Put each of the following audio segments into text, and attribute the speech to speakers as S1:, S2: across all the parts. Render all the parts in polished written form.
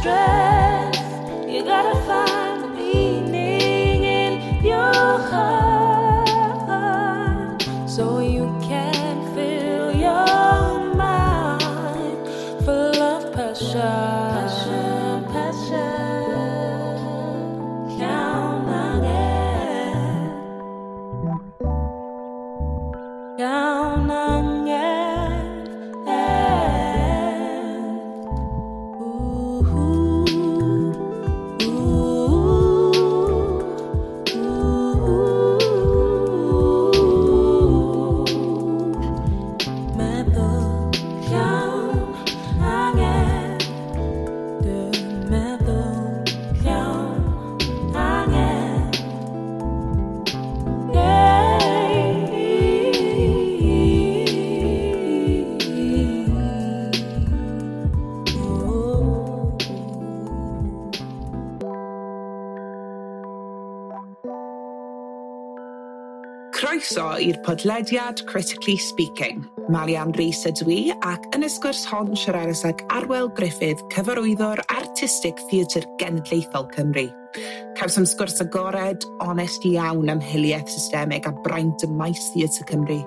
S1: strength. You gotta find the meaning in your heart so you can fill your mind full of passion. Passion, passion. Count again. Count again. Ooh, ooh, ooh. Meddwl llawn angen. Dwi'n meddwl llawn angen. Yeah. Oh.
S2: Croeso i'r podlediad Critically Speaking. Malian Rhys ydw i ac yn y sgwrs hon siaradais ag Arwel Gruffydd, cyfarwyddwr artistig Theatr Genedlaethol Cymru. Cawsom sgwrs agored, onest iawn am hiliaeth systemig a braint ym maes Theatr Cymru.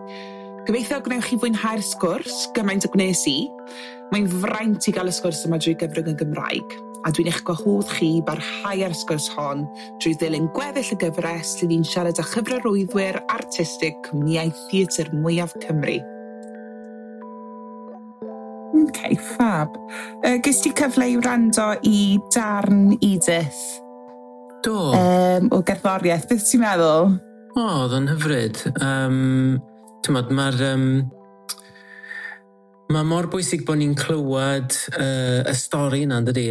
S2: Gobeithio gwnewch chi fwynhau'r sgwrs, gymaint o gwnes i. Mae'n fraint i gael y sgwrs yma drwy gyfrwng y Gymraeg, a dwi'n eich gwahodd chi i barhau ar y sgwrs hon drwy ddilyn gweddill y gyfres lle ni'n siarad â chyfarwyddwyr artistig cwmnïau theatr mwyaf Cymru. OK, fab. Ges ti cyfle i wrando i darn Edith
S3: Do.
S2: o gerddoriaeth? Beth ti'n meddwl?
S3: O, oedd o'n hyfryd. T'mod, mae'r... mae mor bwysig bod ni'n clywed y stori yna, yn dydi?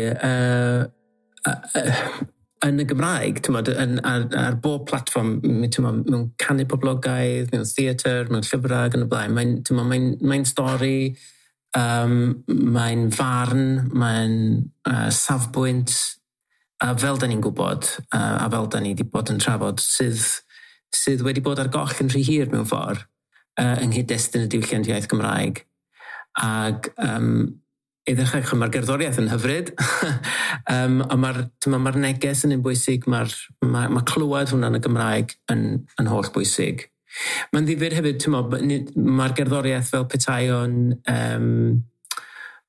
S3: Yn y Gymraeg, t'mod, ar bob platfform, t'mod, mewn canu poblogaidd, mewn theatr, mewn llyfrau ac yn y blaen. Mae'n, t'mod, mae'n stori, mae'n farn, mae'n safbwynt, a fel da ni'n gwybod, a fel da ni wedi bod yn trafod, sydd wedi bod ar goll yn rhy hir mewn ffordd, yng nghyd-destun y diwylliant iaith Gymraeg. Ac i ddechrau, mae'r gerddoriaeth yn hyfryd, a mae'r neges yn un bwysig, mae clywed hwnna yn y Gymraeg yn holl bwysig. Mae'n ddifyr hefyd, mae'r gerddoriaeth fel petai o'n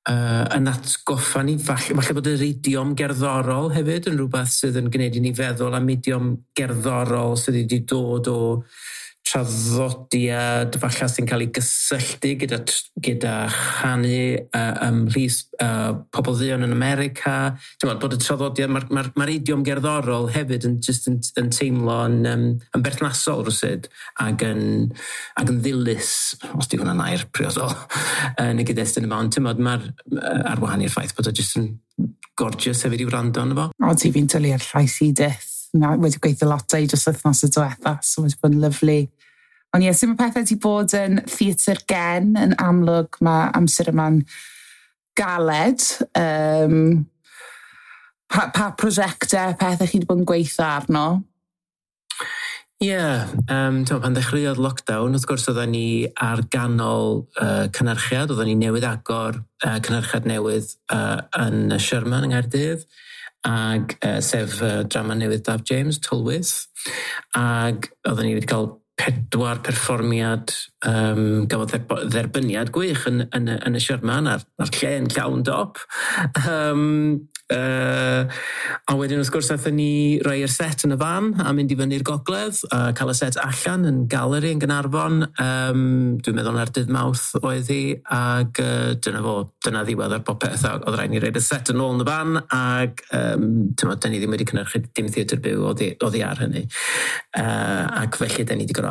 S3: yn atgoffa ni, falle bod yr idiom gerddorol hefyd yn rhywbeth sydd yn gwneud i ni feddwl am idiom gerddorol sydd wedi dod o traddodiad falle sy'n cael ei gysylltu gyda chanu ymhlith pobl dduon yn America. Ti'n bod y traddodiad, mae'r idiom gerddorol hefyd yn, just yn teimlo'n yn berthnasol rywsut ac yn ddilys, os di hwnna'n air priodol, yn y gyd-destun yma. Ond ti'n mae'r ar wahan i'r ffaith bod o just yn gorgeous hefyd i wrando arno fo.
S2: O, ti fi'n dwlu ar llais Edith. Na, wedi gweithio lot o'i dros wythnos y diwetha, so wedi bod yn lyfli. Ond ie, sut mae pethau wedi bod yn theatr gen yn amlwg, mae amser yma'n galed. Pa prosiectau, pethau chi wedi bod yn gweithio arno?
S3: Ie, yeah, pan ddechreuodd lockdown, wrth gwrs oedden ni ar ganol cynhyrchiad, oedden ni newydd agor cynhyrchiad newydd yn y Sherman yng Nghaerdydd, ag sef drama newydd Daf James, Tylwyth, ag oedden ni wedi cael 4 perfformiad gafodd dderbyniad gwych yn y Sherman a'r lle yn llawn dop. A wedyn wrth gwrs aethon ni roi'r set yn y fan a mynd i fyny'r gogledd a cael y set allan yn galeri yn Gaernarfon. Dwi'n meddwl na'r dydd Mawrth oedd hi, ag dyna fo, dyna ddiwedd ar popeth. A oedd rhaid ni roi'r set yn ôl yn y fan, ag t'mod, da ni ddim wedi cynhyrchu dim theatr byw oddi ar hynny. Ac felly da ni wedi gorfod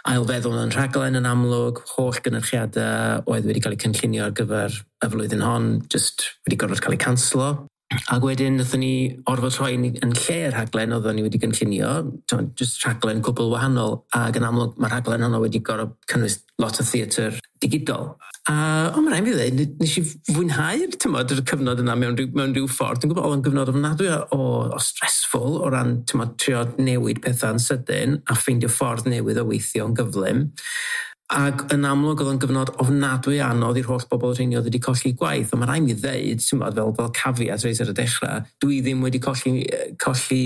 S3: ail feddwl yn rhaglen yn amlwg, holl gynyrchiadau oedd wedi cael eu cynllunio ar gyfer y flwyddyn hon, just wedi gorfod cael eu canslo. Ac wedyn wnaethon ni orfod rhoi yn lle'r rhaglen oedden ni wedi gynllunio, just rhaglen cwbl wahanol, ac yn amlwg mae'r rhaglen honno wedi gorfod cynnwys lot o theatr digidol. A ond mae'n rhaid fi ddweud, nes i fwynhau'r, t'mod, yr cyfnod yna mewn rhyw ffordd. Dwi'n gwybod oedd o'n gyfnod ofnadwy o stressful o ran, t'mod, trio newid pethau'n sydyn a ffeindio ffordd newydd o weithio yn gyflym. Ac yn amlwg oedd o'n gyfnod ofnadwy anodd i'r holl bobl rheini oedd wedi colli gwaith. Ond mae rhaid mi ddeud, ti'n bod, fel caveat reit ar y dechrau, dwi ddim wedi colli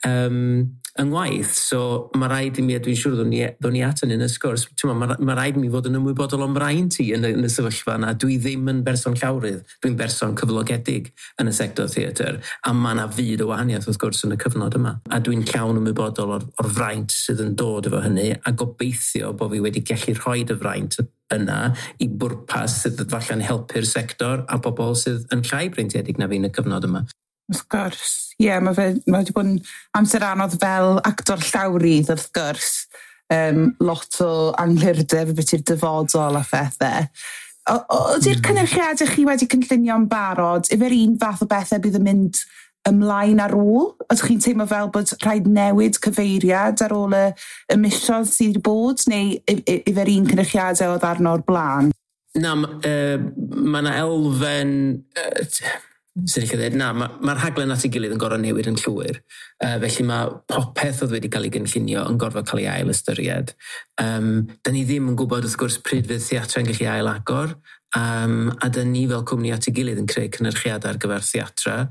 S3: yng ngwaith. So mae rhaid i mi, a dwi'n siŵr ddwn ni at hynny yn y sgwrs, ti'n bod, mae rhaid i mi fod yn ymwybodol o'm mraint i yn y sefyllfa yna. Dwi ddim yn berson llawrydd, dwi'n berson cyflogedig yn y sector theatr, a mae yna fyd o wahaniaeth wrth gwrs yn y cyfnod yma. A dwi'n llawn ymwybodol o'r fraint sydd yn dod efo hynny, a gobeithio bod fi wedi gallu rhoi y fraint yna i bwrpas sydd falle'n helpu'r sector a bobl sydd yn llai breintiedig na fi yn y cyfnod yma.
S2: Wrth gwrs. Ie, yeah, mae wedi bod yn amser anodd fel actor llawrydd, wrth gwrs. Lot o anghlirdeb beth i'r dyfodol a phethau. Ydy'r cynyrchiadau chi wedi cynllunio'n barod, efo'r un fath o bethau bydd yn mynd ymlaen ar ôl? Ydych chi'n teimlo fel bod rhaid newid cyfeiriad ar ôl y misoedd sydd wedi bod, neu efo'r un cynyrchiadau oedd arno o'r blaen?
S3: Na, mae yna elfen... Sy'n eich dweud, na, mae'r rhaglen at ei gilydd yn gorfod newid yn llwyr. Felly mae popeth oedd wedi cael ei gynllunio yn gorfod cael ei ail ystyried. Da ni ddim yn gwybod wrth gwrs pryd fydd theatrau yn gallu ail agor, a da ni fel cwmni at ei gilydd yn creu cynyrchiadau ar gyfer theatrau.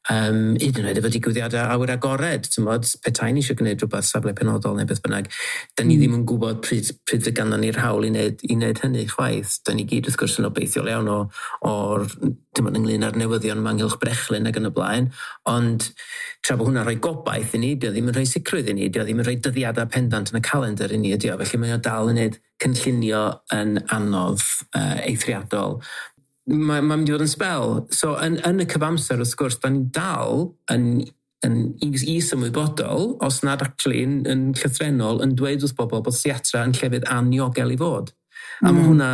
S3: Hyd yn oed efo digwyddiadau awyr agored, ti'n petai ni eisiau gwneud rhywbeth safle penodol neu beth bynnag, da ni ddim yn gwybod pryd fydd ganddo ni'r hawl i wneud hynny chwaith. Da ni gyd wrth gwrs yn obeithiol iawn o'r ynglyn â'r newyddion yma ynghylch brechlyn ac yn y blaen, ond tra bod hwnna'n rhoi gobaith i ni, dio ddim yn rhoi sicrwydd i ni, dio ddim yn rhoi dyddiadau pendant yn y calendar i ni, ydi o. Felly mae o dal yn gwneud cynllunio yn anodd eithriadol. Mae'n mynd i fod yn sbel. So, yn y cyfamser, wrth gwrs, da ni dal yn is-ymwybodol, os nad actually yn llythrennol, yn dweud wrth bobl bod theatra yn llefydd aniogel i fod. A mae hwnna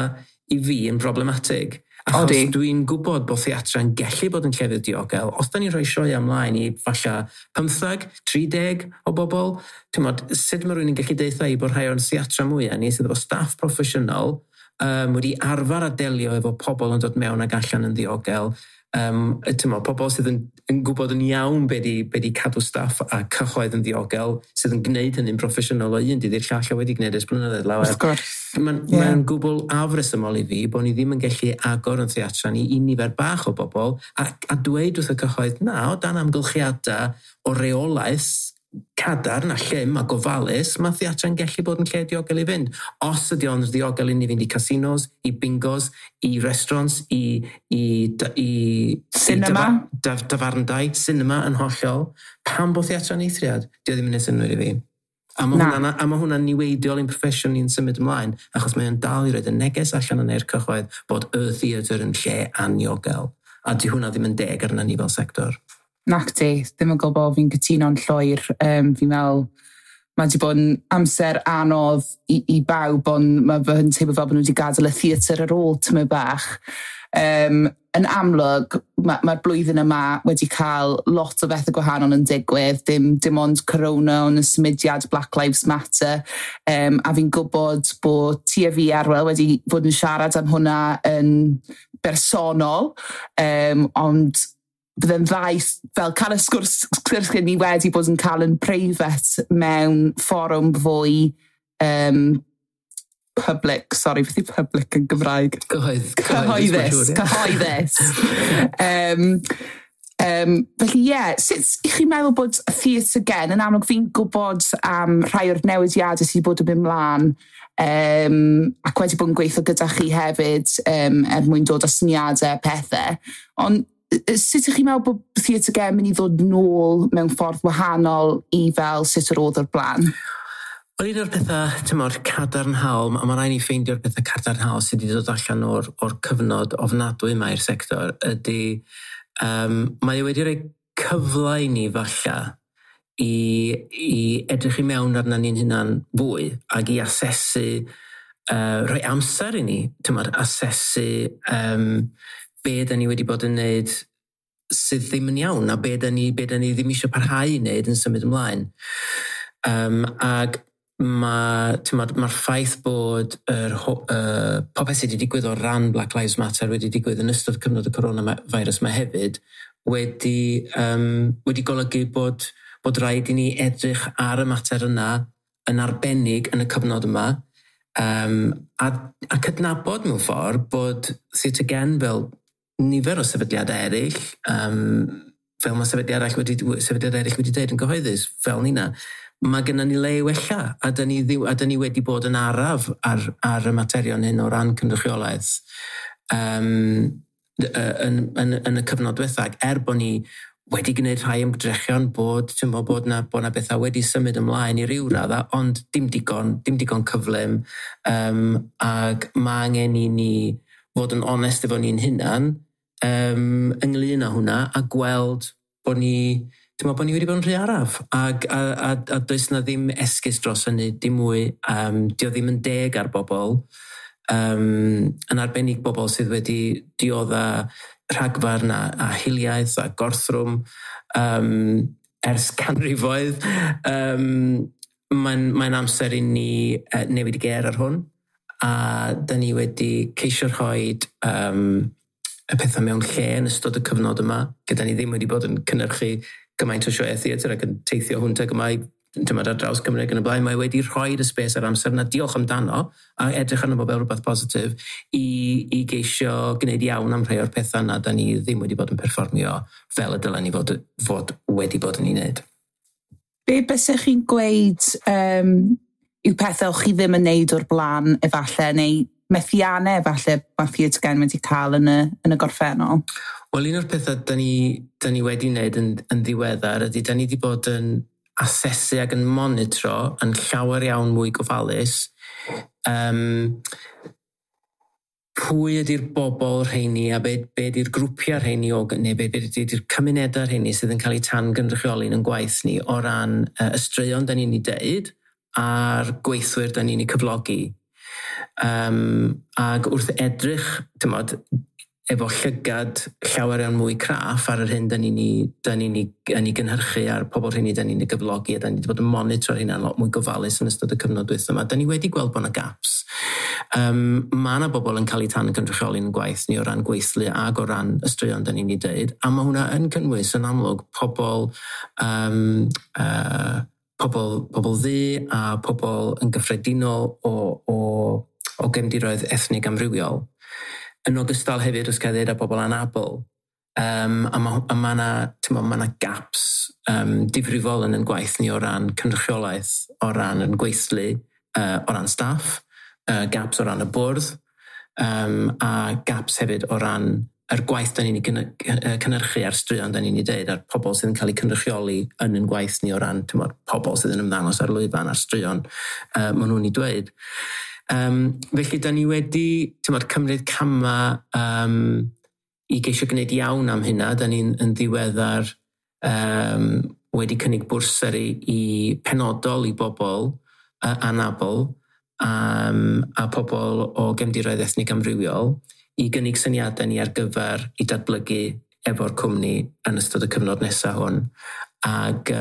S3: i fi yn problematig. Achos dwi'n gwybod bod theatra yn gallu bod yn llefydd diogel. Os da ni'n rhoi sioe ymlaen i falle 15, 30 o bobl, ti'n modd, sut mae rhywun yn gallu deutha i bod rhai o'r theatra mwyaf ni sydd efo staff proffesiynol, wedi arfer a delio efo pobl yn dod mewn ac allan yn ddiogel. Pobl sydd yn gwybod yn iawn be di cadw staff a cyhoedd yn ddiogel, sydd yn gwneud hynny'n proffesiynol o un dydd i'r llall a wedi gwneud ers blynyddoedd lawer.
S2: Wrth gwrs.
S3: Mae'n gwbl afresymol i fi bod ni ddim yn gallu agor yn theatra ni i nifer bach o bobl a dweud wrth y cyhoedd, na, o dan amgylchiadau o reolaeth cadarn a llym a gofalus, mae theatra'n gallu bod yn lle diogel i fynd. Os ydy o'n ddiogel i ni fynd i casinos, i bingos, i restaurants, i
S2: cinema,
S3: dafarndai, cinema yn hollol, pam bod theatra'n eithriad? Dio ddim yn neud synnwyr i fi. A mae hwnna'n niweidiol i'n proffesiwn ni'n symud ymlaen, achos mae o'n dal i roed y neges allan yn e'r cyhoedd bod y theatr yn lle aniogel. A di hwnna ddim yn deg arna ni fel sector.
S2: Nac di, ddim yn gwybod, fi'n cytuno'n llwyr. Fi'n meddwl, mae wedi bod yn amser anodd i bawb, ond mae fy teimlo fel bod nhw wedi gadael y theatr ar ôl tyma bach. Yn amlwg, mae'r blwyddyn yma wedi cael lot o bethau gwahanol yn digwydd, dim ond corona, ond y symudiad Black Lives Matter, a fi'n gwybod bod ti a fi, Arwel, wedi bod yn siarad am hwnna yn bersonol, ond bydde'n dda fel cael y sgwrs ni wedi bod yn cael yn preifat mewn fforwm fwy public, sorry, beth yw public yn Gymraeg?
S3: Cyhoeddus.
S2: Cyhoeddus. Felly ie, sut i chi'n meddwl bod Theatr Gen, yn amlwg fi'n gwybod am rhai o'r newidiadau sydd wedi bod yn mynd mlaen, ac wedi bod yn gweithio gyda chi hefyd er mwyn dod â syniadau pethau, ond sut ydych chi'n meddwl bod Theatr Gen mynd i ddod nôl mewn ffordd wahanol i fel sut yr oedd o'r blaen?
S3: Wel, un o'r pethau, tymor, cadarnhaol, a mae rhaid ni ffeindio'r pethau cadarnhaol sydd wedi dod allan o'r cyfnod ofnadwy yma i'r sector, ydy, mae wedi rhoi cyfle i ni falle i edrych i mewn arna ni'n hunan fwy ac i asesu, rhoi amser i ni, tymor, asesu be da ni wedi bod yn neud sydd ddim yn iawn, a be da ni ddim eisiau parhau i wneud yn symud ymlaen. Ac mae'r ffaith bod popeth sydd wedi digwydd o ran Black Lives Matter wedi digwydd yn ystod cyfnod y coronavirus yma hefyd wedi golygu bod rhaid i ni edrych ar y mater yna yn arbennig yn y cyfnod yma. A cydnabod mewn ffordd bod Theatr Gen, fel nifer o sefydliadau eraill, fel mae sefydliad eraill wedi dweud yn gyhoeddus, fel nina, mae gennym ni le i wella, a da ni wedi bod yn araf ar y materion hyn o ran cynrychiolaeth yn y cyfnod diwethaf, er bod ni wedi gwneud rhai ymdrechion bod na bethau wedi symud ymlaen i ryw radda, ond dim digon cyflym, ac mae angen i ni fod yn onest efo ni'n hunan ynglyn â hwnna a gweld bod ni, dwi'n meddwl bod ni wedi bod yn rhy araf a does na ddim esgus dros hynny, dim mwy. Dio ddim yn deg ar bobl, yn arbennig bobl sydd wedi diodda rhagfarn a hiliaeth a gorthrwm ers canrifoedd. Mae'n amser i ni newid y gêr ar hwn, a da ni wedi ceisio rhoi y pethau mewn lle yn ystod y cyfnod yma, gyda ni ddim wedi bod yn cynhyrchu gymaint o sioeau theatr ac yn teithio hwnt ag yma tymod, ar draws Cymru ac yn y blaen. Mae wedi rhoi y space a'r amser yna, diolch amdano, a edrych arno fo fel rhywbeth positif, i geisio gwneud iawn am rhai o'r pethau yna da ni ddim wedi bod yn perfformio fel y dylen ni fod wedi bod yn ei wneud.
S2: Be bysech chi'n gweud yw pethau o'ch chi ddim yn neud o'r blaen efallai, neu methiannau efallai mae Theatr Gen wedi cael yn y gorffennol?
S3: Wel, un o'r pethau da ni wedi wneud yn ddiweddar ydy da ni wedi bod yn asesu ac yn monitro yn llawer iawn mwy gofalus pwy ydy'r bobl rheini a be ydy'r grwpiau rheini o, neu be ydy'r cymunedau rheini sydd yn cael eu tan gynrychioli yn gwaith ni o ran y straeon da ni'n ei deud a'r gweithwyr da ni'n ei cyflogi. Ac wrth edrych, tymod, efo llygad llawer iawn mwy craff ar yr hyn da ni'n ei gynhyrchu a'r pobl rheini da ni'n ei gyflogi, a da ni wedi bod yn monitro'r hynna'n lot mwy gofalus yn ystod y cyfnod dwytha yma. Da ni wedi gweld bod yna gaps. Mae yna bobl yn cael eu tan gynrychioli yn gwaith ni o ran gweithlu ag o ran y straeon da ni'n ei deud, a mae hwnna yn cynnwys yn amlwg pobl ddu a pobl yn gyffredinol o gefndiroedd ethnig amrywiol. Yn ogystal hefyd, os gael dweud, â bobl anabl. A ma 'na, t'mo', ma 'na gaps difrifol yn gwaith ni o ran cynrychiolaeth, o ran yn gweithlu, o ran staff, gaps o ran y bwrdd, a gaps hefyd o ran yr gwaith da ni'n ei cynhyrchu a'r straeon da ni'n ei deud, a'r pobl sydd yn cael eu cynrychioli yn yn gwaith ni o ran, t'mod, pobl sydd yn ymddangos ar lwyfan a'r straeon maen nhw'n ei dweud. Felly da ni wedi, t'mod, cymryd cama i geisio gwneud iawn am hynna. Da ni'n yn ddiweddar wedi cynnig bwrsari i penodol i bobl anabl a pobl o gefndiroedd ethnig amrywiol i gynnig syniadau ni ar gyfer i datblygu efo'r cwmni yn ystod y cyfnod nesaf hwn. Ac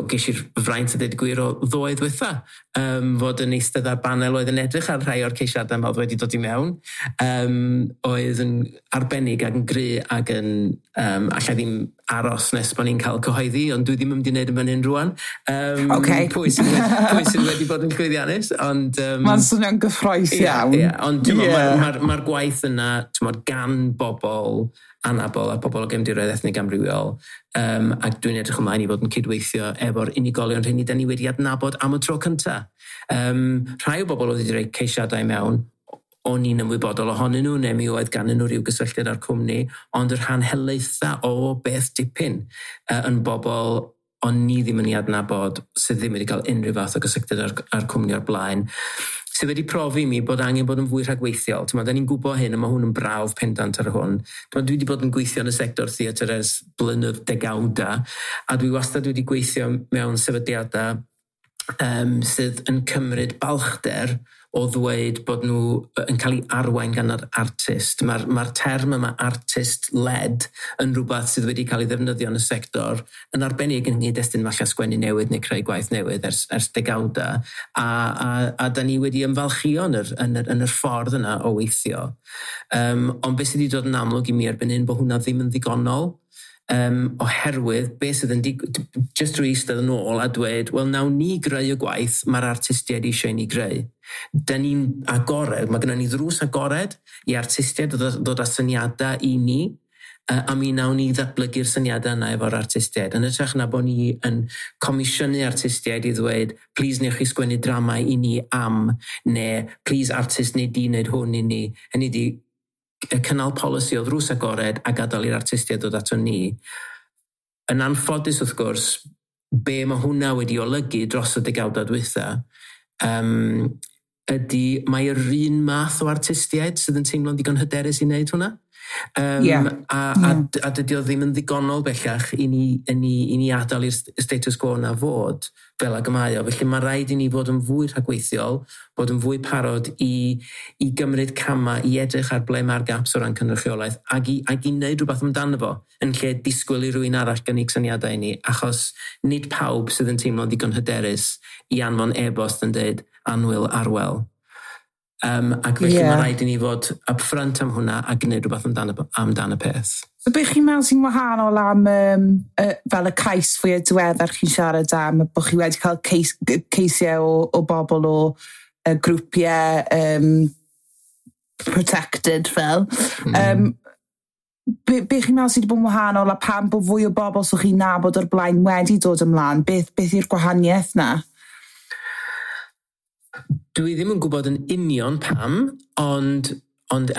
S3: ges i'r fraint a dweud y gwir o ddoe ddwytha, fod yn eistedd ar banel oedd yn edrych ar rhai o'r ceisiadau yma oedd wedi dod i mewn, oedd yn arbennig ac yn gry ac yn, allai ddim aros nes bod ni'n cael cyhoeddi, ond dwi ddim yn mynd i wneud yn fan hyn rwan. Pwy sydd wedi bod yn llwyddiannus, ond
S2: Mae'n swnio'n gyffrous iawn.
S3: Ie, ond yeah. Mae'r gwaith yna, t'mod, gan bobl anabl a pobl o gefndiroedd ethnig amrywiol, ac dwi'n edrych ymlaen i fod yn cydweithio efo'r unigolion rheini da ni wedi adnabod am y tro cynta. Rhai o bobl oedd wedi rhoi ceisiadau mewn, o'n i'n ymwybodol ohonyn nhw, neu mi oedd ganddyn nhw rhyw gysylltiad â'r cwmni, ond yr rhan helaetha o beth dipyn yn bobl o'n ni ddim yn ei adnabod, sydd ddim wedi cael unrhyw fath o gysylltiad â'r cwmni o'r blaen, sydd wedi profi i mi bod angen bod yn fwy rhagweithiol. T'mod, da ni'n gwybod hyn, a mae hwn yn brawf pendant ar hwn. T'mod, dwi wedi bod yn gweithio yn y sector theatr ers blynedd degawda, a dwi wastad wedi gweithio mewn sefydliadau sydd yn cymryd balchder o ddweud bod nhw yn cael ei arwain gan yr artist. Mae'r term yma artist-led yn rhywbeth sydd wedi cael ei ddefnyddio yn y sector, yn arbennig yn nghyd-destun falle sgwennu newydd neu creu gwaith newydd ers degawda. A da ni wedi ymfalchio yn yr ffordd yna o weithio. Ond beth sydd wedi dod yn amlwg i mi erbyn hyn bod hwnna ddim yn ddigonol. Oherwydd beth sydd yn just drwy eistedd yn ôl a dweud, wel, nawn ni greu y gwaith mae'r artistiaid eisiau i ni greu. Da ni'n agored, mae gennym ni ddrws agored i artistiaid ddod â syniadau i ni, a mi nawn ni ddatblygu'r syniadau yna efo'r artistiaid. Yn hytrach na bod ni yn comisiynu artistiaid i ddweud, "Please newch chi sgwennu drama i ni am," neu "Please artist neu di wneud hwn i ni." Hynny di, y cynnal polisi o ddrws agored a gadael i'r artistiaid ddod ato ni. Yn anffodus, wrth gwrs, be mae hwnna wedi olygu dros y degawdau dwytha, ydy mae'r un math o artistiaid sydd yn teimlo'n ddigon hyderus i wneud hwnna. A dydy o ddim yn ddigonol bellach i ni adael i'r status quo na fod fel ag y mae o. Felly mae rhaid i ni fod yn fwy rhagweithiol, bod yn fwy parod i gymryd camau, i edrych ar ble mae'r gaps o ran cynrychiolaeth ac i wneud rhywbeth amdano fo yn lle disgwyl i rywun arall gynnig syniadau i ni, achos nid pawb sydd yn teimlo'n ddigon hyderus i anfon e-bost yn dweud, "Annwyl Arwel." Ac felly mae rhaid i ni fod upfront am hwnna a gwneud rhywbeth amdan y peth.
S2: So beth chi'n meddwl sy'n wahanol am fel y cais fwyaf diweddar chi'n siarad am, bod chi wedi cael ceisiau o bobl o grwpiau protected fel. Be chi'n meddwl sydd wedi bod yn wahanol a pam bod fwy o bobl sy'ch chi'n nabod o'r blaen wedi dod ymlaen? Beth yw'r gwahaniaeth na?
S3: Dwi ddim yn gwybod yn union pam, ond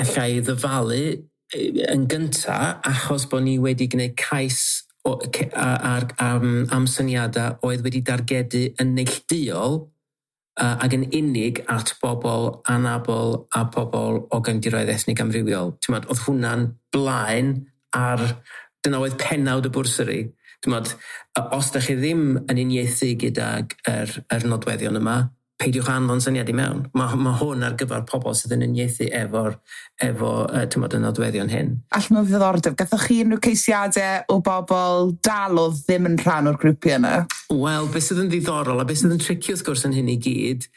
S3: allai ddyfalu yn gynta achos bod ni wedi gwneud cais o, ce- a- ar, am syniadau oedd wedi dargedu yn neillduol ac yn unig at bobl anabl a bobl o gefndiroedd ethnig amrywiol. T'mod, oedd hwnna'n blaen ar... Dyna oedd penawd y bwrsari. T'mod, os da chi ddim yn uniaethu gydag yr nodweddion yma, peidiwch anfon syniad i mewn. Mae hwn ar gyfer pobl sydd yn uniaethu efo t'mod, y nodweddion hyn.
S2: Allan o ddiddordeb, gathoch chi unrhyw ceisiadau o bobl dal oedd ddim yn rhan o'r grwpiau yna?
S3: Wel, beth sydd yn ddiddorol a beth sydd yn tricky wrth gwrs yn hyn i gyd,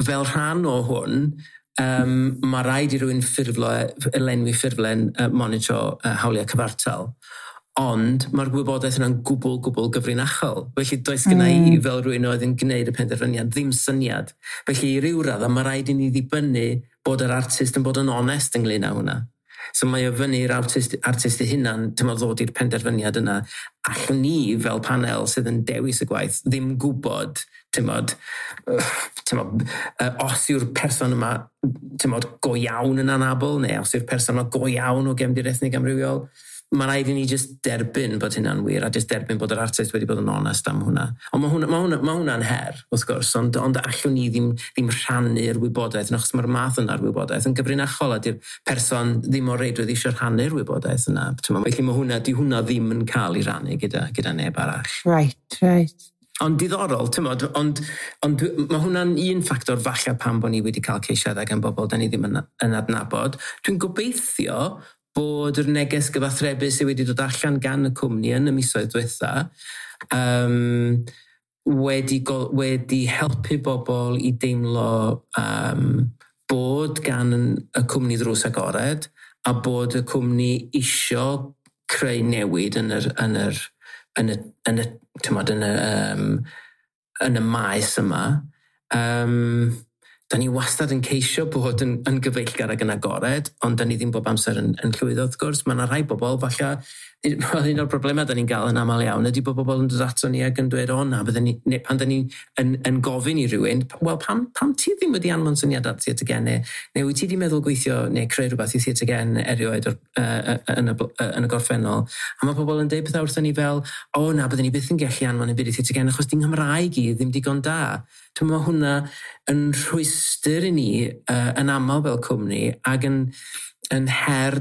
S3: fel rhan o hwn, mae rhaid i rywun ffurflo, lenwi ffurflen monitro hawliau cyfartal. Ond mae'r gwybodaeth yna'n gwbl, gwbl gyfrinachol. Felly does gynna i fel rhywun oedd yn gwneud y penderfyniad ddim syniad. Felly i ryw raddau mae rhaid i ni ddibynnu bod yr artist yn bod yn onest ynglyn â hwnna. So mae o fyny i'r artist ei hunan, ti'n ddod i'r penderfyniad yna. Allwn ni fel panel sydd yn dewis y gwaith ddim gwybod, ti'n mod, os yw'r person yma, ti'n mod, go iawn yn anabl, neu os yw'r person yma go iawn o gefndir ethnig amrywiol. Mae rhaid i ni just derbyn bod hynna'n wir a just derbyn bod yr artist wedi bod yn onest am hwnna. Ond mae hwnna'n her, wrth gwrs, ond allwn ni ddim rhannu'r wybodaeth, achos mae'r math yna'r wybodaeth yn gyfrinachol a di'r person ddim o reidrwydd eisiau rhannu'r wybodaeth yna. T'mo', felly mae hwnna, di hwnna ddim yn cael ei rannu gyda neb arall.
S2: Right.
S3: Ond diddorol, ti'n mod, ond mae hwnna'n un ffactor falle pam bod ni wedi cael ceisiadau gan bobl da ni ddim yn adnabod. Dwi'n gobeithio bod yr neges gyfathrebu sydd wedi dod allan gan y cwmni yn y misoedd diwetha wedi helpu bobl i deimlo bod gan y cwmni ddrws agored a bod y cwmni isio creu newid yn y, t'mod, yn y maes yma. Da ni wastad yn ceisio bod yn gyfeillgar ac yn agored, ond da ni ddim bob amser yn llwyddo, wrth gwrs. Mae yna rhai bobl, falle, wel, un o'r problemau da ni'n gael yn aml iawn ydy bod bobl yn dod ato ni ac yn dweud, "O na," bydden ni, neu pan da ni yn gofyn i rywun, "Wel, pam ti ddim wedi anfon syniad at Theatr Gen, neu wyt ti wedi meddwl gweithio neu creu rhywbeth i Theatr Gen erioed yn y gorffennol?" A mae pobl yn deud pethau wrthon ni fel, "O na, bydden ni byth yn gallu anfon yn byd i Theatr Gen achos di'n Nghymraeg i ddim digon da." Dwi'n meddwl hwnna yn rhwystr i ni yn aml fel cwmni ac yn her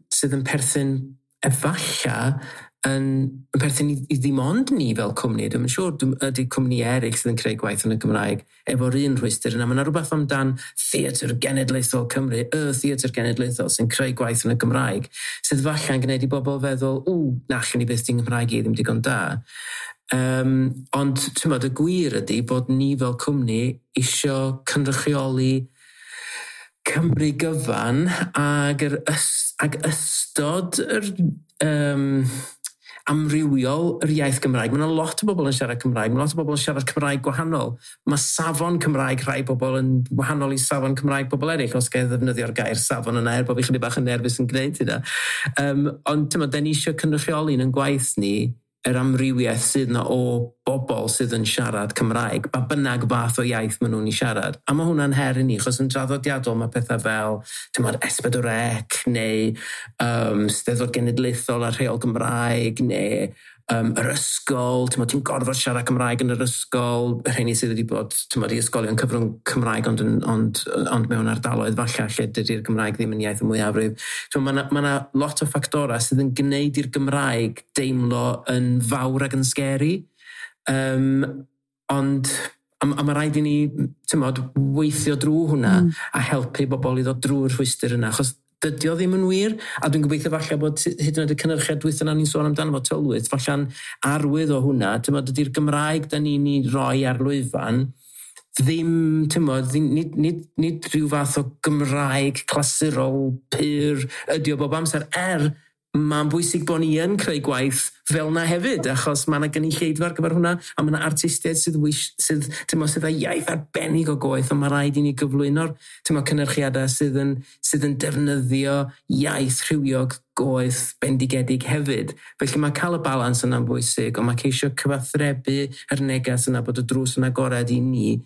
S3: sydd yn perthyn efalla yn perthyn i ddim ond ni fel cwmni. Dwi'n yn siŵr ydy cwmni eraill sydd yn creu gwaith yn y Gymraeg efo'r un rhwystr yna. Mae yna rhywbeth amdan Theatr Genedlaethol Cymru, y Theatr Genedlaethol sy'n creu gwaith yn y Gymraeg, sydd falle yn gwneud i bobl feddwl, "Ww, na allwn ni byth, di'n Nghymraeg i ddim digon da." Ond ti'n bod, y gwir ydy bod ni fel cwmni isio cynrychioli Cymru gyfan ag ystod yr amrywiol yr iaith Gymraeg. Mae yna lot o bobl yn siarad Cymraeg, mae lot o bobl yn siarad Cymraeg gwahanol. Mae safon Cymraeg rhai bobl yn wahanol i safon Cymraeg bobl eraill, os gael ddefnyddio'r gair safon yna, er bod fi chydig bach yn nerfus yn gwneud hynna. Ond ti'n, da ni eisiau cynrychioli yn gwaith ni yr amrywiaeth sydd yna o bobl sydd yn siarad Cymraeg, ba bynnag fath o iaith maen nhw'n ei siarad. A mae hwnna'n her i ni, achos yn draddodiadol mae pethau fel, ti'n gwbod, S4C neu Steddfod Genedlaethol a rheol Gymraeg neu yr ysgol, ti'n gorfod siarad Cymraeg yn yr ysgol, y rheini sydd wedi bod, ti'n, i ysgolion cyfrwng Cymraeg ond mewn ardaloedd falle lle dydy'r Gymraeg ddim yn iaith y mwyafrif. Mae yna ma lot o ffactorau sydd yn gwneud i'r Gymraeg deimlo yn fawr ac yn scary. Ond a mae rhaid i ni, ti'n, weithio drwy hwnna a helpu bobl i ddod drwy'r rhwystr yna. Achos dydy o ddim yn wir, a dwi'n gobeithio falle bod hyd yn oed y cynhyrchiad dwytha yna ni'n sôn amdano fo, Tylwyth, falle'n arwydd o hwnna, ti'n, dydy'r Gymraeg da ni'n ei roi ar lwyfan ddim, ti'n, nid rhyw fath o Gymraeg clasurol pur ydy o bob amser, er mae'n bwysig bod ni yn creu gwaith fel na hefyd, achos mae yna gynulleidfa ar gyfer hwnna, a mae yna artistiaid sydd, ti'n, sydd â iaith arbennig o goeth, ond mae rhaid i ni gyflwyno'r, ti'n, cynyrchiadau sydd yn defnyddio iaith rhywiog goeth bendigedig hefyd. Felly mae cael y balans yna'n bwysig, ond mae ceisio cyfathrebu yr neges yna bod y drws yn agored i ni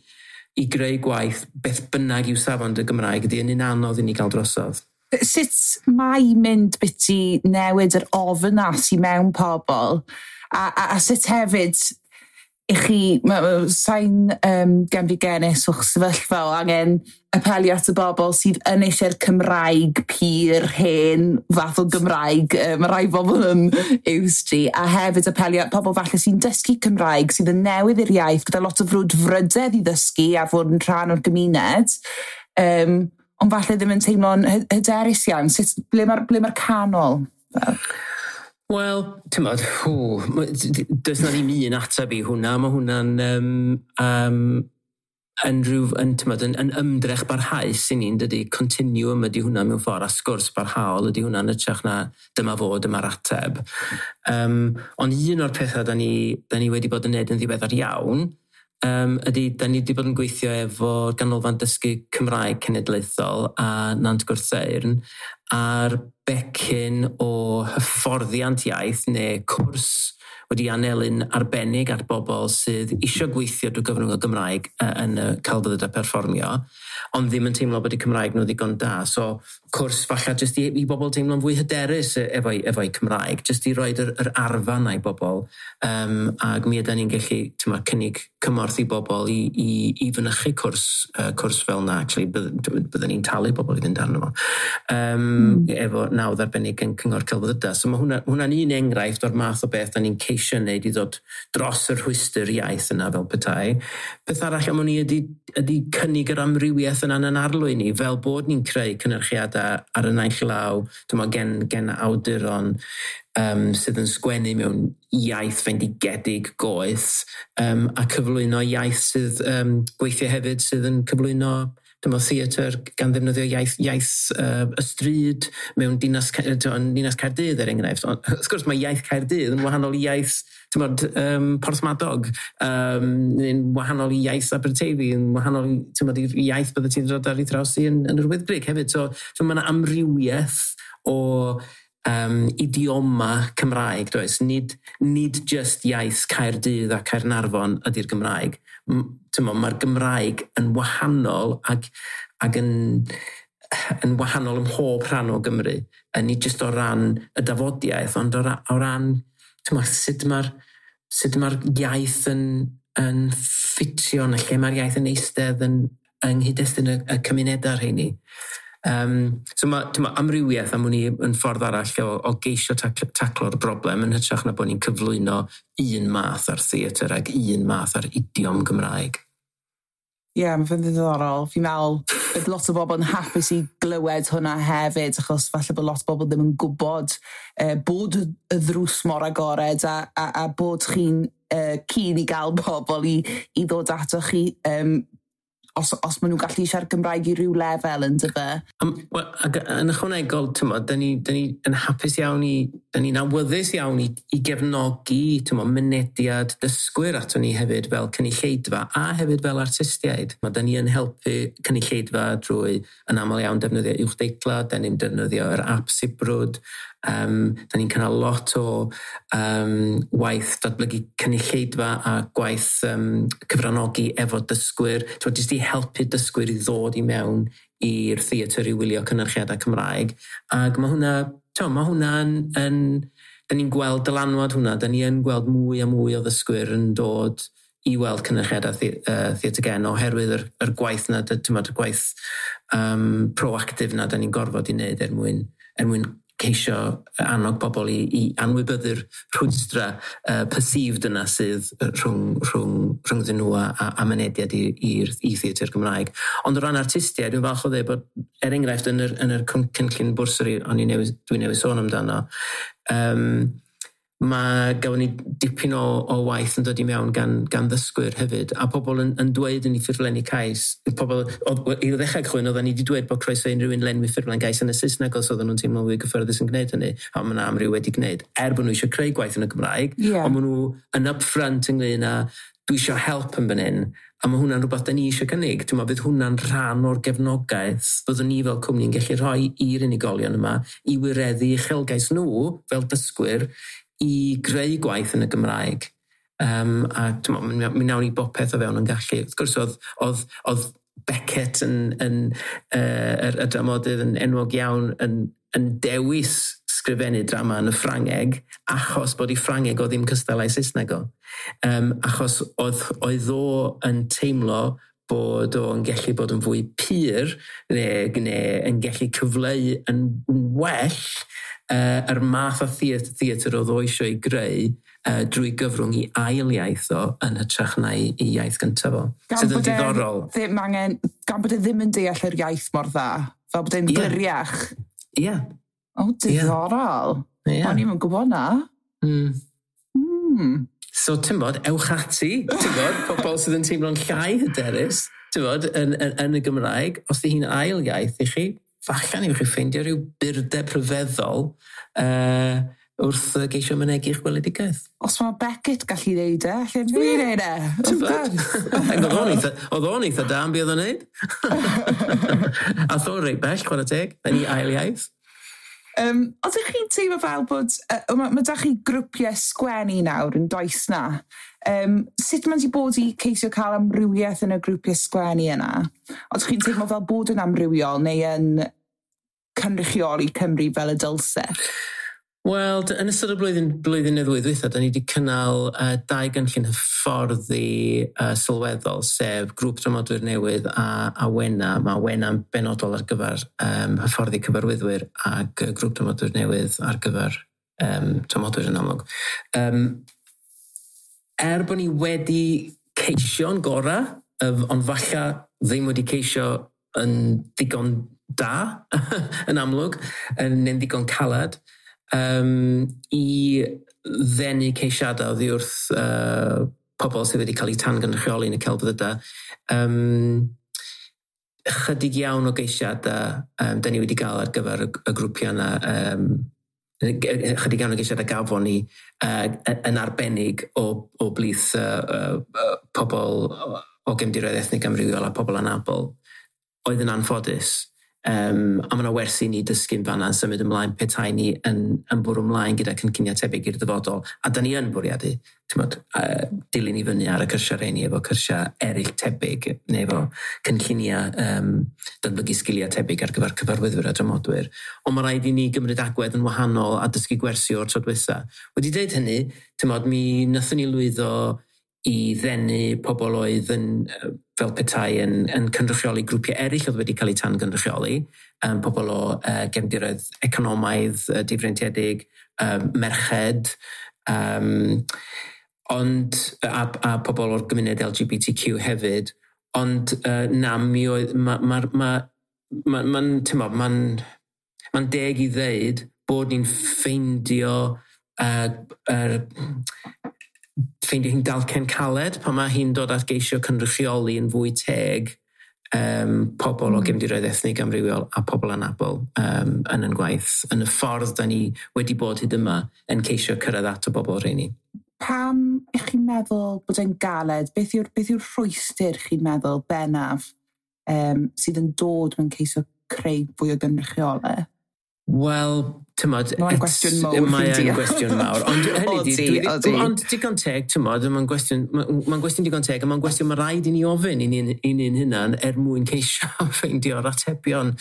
S3: i greu gwaith beth bynnag yw safon dy Gymraeg ydy yn un anodd i ni gael drosodd.
S2: Sut mae mynd biti newid yr ofn 'na sy'n mewn pobl a sut hefyd i chi, sa'n genfigennus o'ch sefyllfa o angen apelio at y bobl sydd yn eisiau'r Cymraeg pur, hen fath o Gymraeg. Mae rai bobl yn used i. A hefyd apelio at pobl falle sy'n dysgu Cymraeg, sydd yn newydd i'r iaith, gyda lot o frwdfrydedd i ddysgu a fod yn rhan o'r gymuned. Ond falle ddim yn teimlo'n hyderus iawn. Sut, ble mae'r canol?
S3: Wel, ti'n modd, does na ddim un ateb i hwnna. Mae hwnna'n yn, rhyw, yn, tymod, yn ymdrech barhaus i ni'n dydy, continuum ydy hwnna mewn ffordd, a sgwrs barhaol ydy hwnna'n hytrach na dyma fo, dyma'r ateb. Ond un o'r pethau da ni wedi bod yn neud yn ddiweddar iawn ydy, da ni wedi bod yn gweithio efo Ganolfan Dysgu Cymraeg Cenedlaethol a Nant Gwrtheyrn ar becyn o hyfforddiant iaith neu cwrs wedi anelu'n arbennig at bobl sydd eisiau gweithio drwy gyfrwng y Gymraeg yn y celfyddydau perfformio, ond ddim yn teimlo bod eu Cymraeg nhw ddigon da. So, cwrs falle jyst i bobl teimlo'n fwy hyderus efo'i Cymraeg, jyst i roed yr arfa 'na i bobl. Ac mi ydyn ni'n gallu, t'mo, cynnig cymorth i bobl i fynychu cwrs fel na. Actually, byddwn ni'n talu bobl i fynd arno fo. Efo nawdd arbennig yn Cyngor Celfyddydau. So mae hwnna'n un enghraifft o'r math o beth da ni'n ceisio wneud i ddod dros y rhwystr iaith yna fel petai. Peth arall am hwn i ydy cynnig yr amrywiaeth yna yn arlwy ni, fel bod ni'n creu cynyrchiadau ar y naill law, dyma gen awduron sydd yn sgwennu mewn iaith fendigedig goeth a cyflwyno iaith sydd gweithio hefyd sydd yn cyflwyno dyma theatr gan ddefnyddio iaith y stryd mewn dinas Caerdydd er enghraifft. Ond, wrth gwrs, mae iaith Caerdydd yn wahanol i iaith, t'mod, Porthmadog, yn wahanol i iaith Aberteifi, yn wahanol i, t'mod, i'r iaith bydde ti'n dod ar ei thraws i yn yr Wyddgrug hefyd. So mae yna amrywiaeth o idioma Cymraeg, does? Nid just iaith Caerdydd a Caernarfon ydy'r Gymraeg. T'mo, mae'r Gymraeg yn wahanol ac yn wahanol ym mhob rhan o Gymru. Nid just o ran y dafodiaeth, ond o ran, t'mo, sut mae'r iaith yn ffitio yn y lle mae'r iaith yn eistedd yng nghyd-destun y cymunedau rheini. So mae, t'mo, amrywiaeth am wn i yn ffordd arall o geisio taclo'r broblem yn hytrach na bod ni'n cyflwyno un math ar theatr ac un math ar idiom Gymraeg.
S2: Ie, yeah, mae fe'n ddiddorol. Fi'n meddwl bydd lot o bobl yn hapus i glywed hwnna hefyd, achos falle bod lot o bobl ddim yn gwybod bod y ddrws mor agored a bod chi'n keen i gael bobl i ddod ato chi os maen nhw'n gallu siarad Gymraeg i ryw lefel yn dyfe.
S3: Well, ac yn ychwanegol, t'mod, da ni yn hapus iawn i ni awyddus iawn i gefnogi, t'mo, mynediad dysgwyr ato ni hefyd fel cynulleidfa a hefyd fel artistiaid. Da ni yn helpu cynulleidfa drwy yn aml iawn defnyddio uwchdeitla, da ni'n defnyddio yr app Sibrwd, da ni'n cynnal lot o waith datblygu cynulleidfa a gwaith cyfranogi efo dysgwyr, t'mo, jyst i helpu dysgwyr i ddod i mewn i'r theatr i wylio cynyrchiadau Cymraeg. Ac mae hwnna, mae hwnna'n, da ni'n gweld dylanwad hwnna, da ni yn gweld mwy a mwy o ddysgwyr yn dod i weld cynyrchiadau Theatr Gen oherwydd yr gwaith na, y gwaith proactif na da ni'n gorfod i wneud er mwyn ceisio annog bobl i anwybyddu'r rhwystra perceived yna sydd rhwngddyn nhw a mynediad i theatr Gymraeg. Ond o ran artistiaid, dwi'n falch o ddweud bod, er enghraifft, yn yr cynllun bwrsari o'n i newydd, dwi newydd sôn amdano, mae gafon ni dipyn o waith yn dod i mewn gan ddysgwyr hefyd, a pobl yn dweud yn ei ffurflenni cais, pobl, i ddechrau cychwyn, oedden ni wedi dweud bod croeso i unrhyw un lenwi ffurflen gais yn y Saesneg os oedden nhw'n teimlo fwy gyffyrddus yn gwneud hynny, a mae yna amryw wedi gwneud, er bod nhw eisiau creu gwaith yn y Gymraeg, ond maen nhw yn upfront ynglyn â dwi eisiau help yn fan hyn, a mae hwnna'n rhywbeth da ni eisiau cynnig. Dwi'n meddwl bydd hwnna'n rhan o'r gefnogaeth byddwn ni fel cwmni'n gallu rhoi i'r unigolion yma i wireddu uchelgais nhw fel dysgwyr i greu gwaith yn y Gymraeg. A t'mo, mi nawn ni bopeth o fewn yn gallu. Wrth gwrs, oedd Beckett yn y dramodydd yn enwog iawn yn dewis sgrifennu drama yn y Ffrangeg achos bod ei Ffrangeg o ddim cystal â'i Saesneg o. Achos oedd o yn teimlo bod o'n gallu bod yn fwy pur neu yn gallu cyfleu yn well yr math o theatr oedd o eisiau ei greu drwy gyfrwng i ail iaith o yn hytrach na i iaith gyntaf o.
S2: Gan
S3: Sydd yn
S2: bod e
S3: diddorol.
S2: Ddim angen, gan bod e ddim yn deall yr iaith mor dda, fel bod e'n gliriach.
S3: Ie.
S2: O, diddorol. O'n i'm yn gwybod na.
S3: So, ti'n bod, ewch ati, ti'n bod, pobl sydd yn teimlo'n llai hyderus, ti'n bod, yn y Gymraeg, os di hi'n ail iaith i chi, falle newch chi ffeindio rhyw burdeb rhyfeddol wrth geisio mynegi'ch gweledigaeth.
S2: Os mae Beckett gallu ddeud e, lle fi wneud e.
S3: Ti'n
S2: Wrth
S3: bod?
S2: gwrs.
S3: Ac oedd o'n eitha da am be oedd o'n neud. A o'n reit bell, chwarae teg, yn ei ail iaith.
S2: Ydych chi'n teimlo fel bod, mae da chi grwpiau sgwennu nawr yn does na? Sut mae'n di bod i ceisio cael amrywiaeth yn y grwpiau sgwennu yna? Ydych chi'n teimlo fel bod yn amrywiol neu yn cynrychioli Cymru fel y dylse?
S3: Wel, yn ystod y blwyddyn neu ddwy ddwytha, da ni wedi cynnal dau gynllun hyfforddi sylweddol, sef grŵp dramodwyr newydd a Wena. Mae Wena'n benodol ar gyfer hyfforddi cyfarwyddwyr ac grŵp dramodwyr newydd ar gyfer dramodwyr yn amlwg. Er bod ni wedi ceisio'n gorau, ond falle ddim wedi ceisio yn ddigon da, yn amlwg, neu'n ddigon calad, i ddenu ceisiadau oddi wrth pobl sydd wedi cael eu tangynrychioli yn y celfyddydau. Chydig iawn o geisiadau da ni wedi gael ar gyfer y grwpiau yna. Chydig iawn o geisiadau gafon ni yn arbennig o blith pobl o gefndiroedd ethnig amrywiol a pobl anabl oedd yn anffodus. A mae yna wersi ni dysgu'n fanna yn symud ymlaen petai ni yn bwrw ymlaen gyda cynlluniau tebyg i'r dyfodol. A da ni yn bwriadu, t'mod, dilyn i fyny ar y cyrsiau rheini efo cyrsiau eraill tebyg, neu efo cynlluniau datblygu sgiliau tebyg ar gyfer cyfarwyddwyr a dramodwyr. Ond mae rhaid i ni gymryd agwedd yn wahanol a dysgu gwersi o'r tro dwytha. Wedi dweud hynny, t'mod, mi nathon ni lwyddo i ddenu pobl oedd yn, fel petai yn cynrychioli grwpiau eraill oedd wedi cael eu tan-gynrychioli, pobl o gefndiroedd economaidd difreintiedig, merched, ond, a pobl o'r gymuned LGBTQ hefyd, ond na, mi oedd, t'mo, ma'n deg i ddeud bod ni'n ffeindio hi'n dalcen caled pan mae hi'n dod at geisio cynrychioli yn fwy teg. pobl o gefndiroedd ethnig amrywiol a pobl anabl yn yn gwaith, yn y ffordd da ni wedi bod hyd yma yn ceisio cyrraedd at y bobl rheini.
S2: Pam ych chi'n meddwl bod e'n galed? Beth yw'r rhwystr chi'n meddwl bennaf sydd yn dod mewn ceisio creu fwy o gynrychiolaeth?
S3: Wel, tymod...
S2: Mae'n gwestiwn mawr.
S3: Mae'n gwestiwn mawr. Ond hynny di, ond digon teg, tymod, mae'n gwestiwn digon teg, a mae'n gwestiwn mae rhaid i ni ofyn i ni'n hunan er mwyn ceisio ffeindio'r atebion.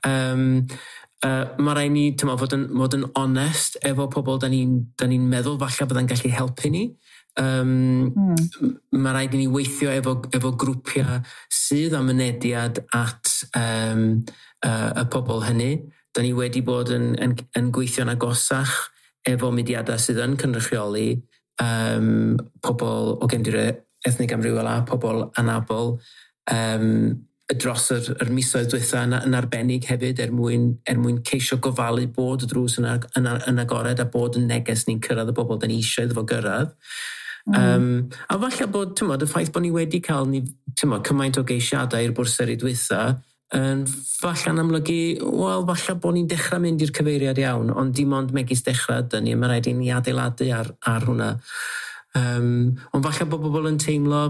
S3: Mae rhaid ni, tymod, fod yn onest efo pobl da ni'n meddwl falle byddai'n gallu helpu ni. Mae rhaid i ni weithio efo grwpiau sydd â mynediad at y pobl hynny. Da ni wedi bod yn gweithio'n agosach efo mudiadau sydd yn cynrychioli pobl o gefndiroedd ethnig amrywiol a pobl anabl dros yr misoedd dwytha yn arbennig hefyd er mwyn ceisio gofalu bod y drws yn agored a bod y neges ni'n cyrraedd y bobl da ni eisiau iddo fo gyrraedd. A falle bod, tymod, y ffaith bod ni wedi cael tymod, cymaint o geisiadau i'r bwrseri dwytha yn falle'n amlygu, wel, falle bod ni'n dechrau mynd i'r cyfeiriad iawn, ond dim ond megis dechrau ydyn ni, mae rhaid i ni adeiladu ar hwnna. Ond falle bod bobl yn teimlo,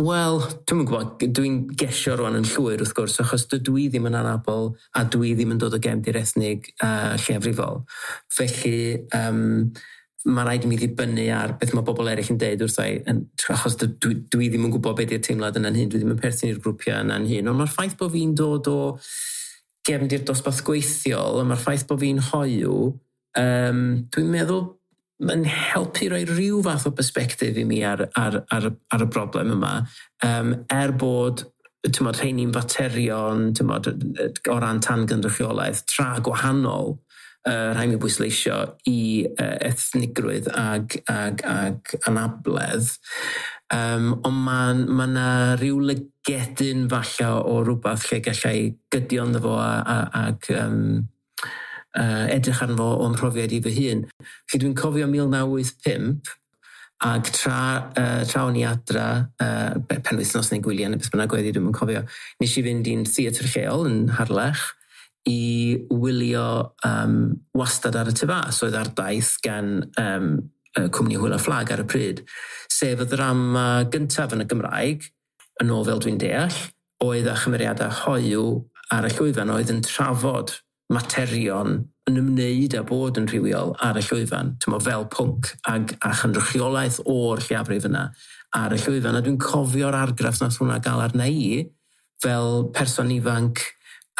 S3: wel, dwi'm yn gwybod, dwi'n gesio rwan yn llwyr wrth gwrs, achos dydw i ddim yn anabl a dwi ddim yn dod o gefndir ethnig lleiafrifol. Felly, mae rhaid i mi ddibynnu ar beth mae bobl eraill yn deud wrtha i, achos dwi ddim yn gwybod beth yw'r teimlad yna'n hyn, dwi ddim yn perthyn i'r grwpiau yna'n hyn. Ond mae'r ffaith bod fi'n dod o gefndir dosbarth gweithiol, a mae'r ffaith bod fi'n hoyw, dwi'n meddwl mae'n helpu rhoi rhyw fath o perspectif i mi ar y broblem yma, er bod tymod, rheini'n faterion tymod, o ran tangynrychiolaeth tra gwahanol, rhaid mi bwysleisio i ethnigrwydd ag anabledd. Ond mae yna rhyw lygedyn falle o rhywbeth lle gallai gydio ynddo fo ag edrych arno fo o'n profiad i fy hun. Felly dwi'n cofio 1985 ag tra o'n i adra, penwythnos neu gwyliau neu beth bynnag oedd hi, dwi'm yn cofio, nes i fynd i'n theatr lleol yn Harlech i wylio Wastad ar y Tŷ Fas, oedd ar daith gan cwmni Hwyl a Fflag ar y pryd, sef y ddrama gyntaf yn y Gymraeg, yn ôl fel dwi'n deall, oedd â chymeriadau hoyw ar y llwyfan, oedd yn trafod materion yn ymwneud â bod yn rhywiol ar y llwyfan, tymo, fel pwnc a chynrychiolaeth o'r lleiafrif yna ar y llwyfan. A dwi'n cofio'r argraff nath hwnna gael arna i, fel person ifanc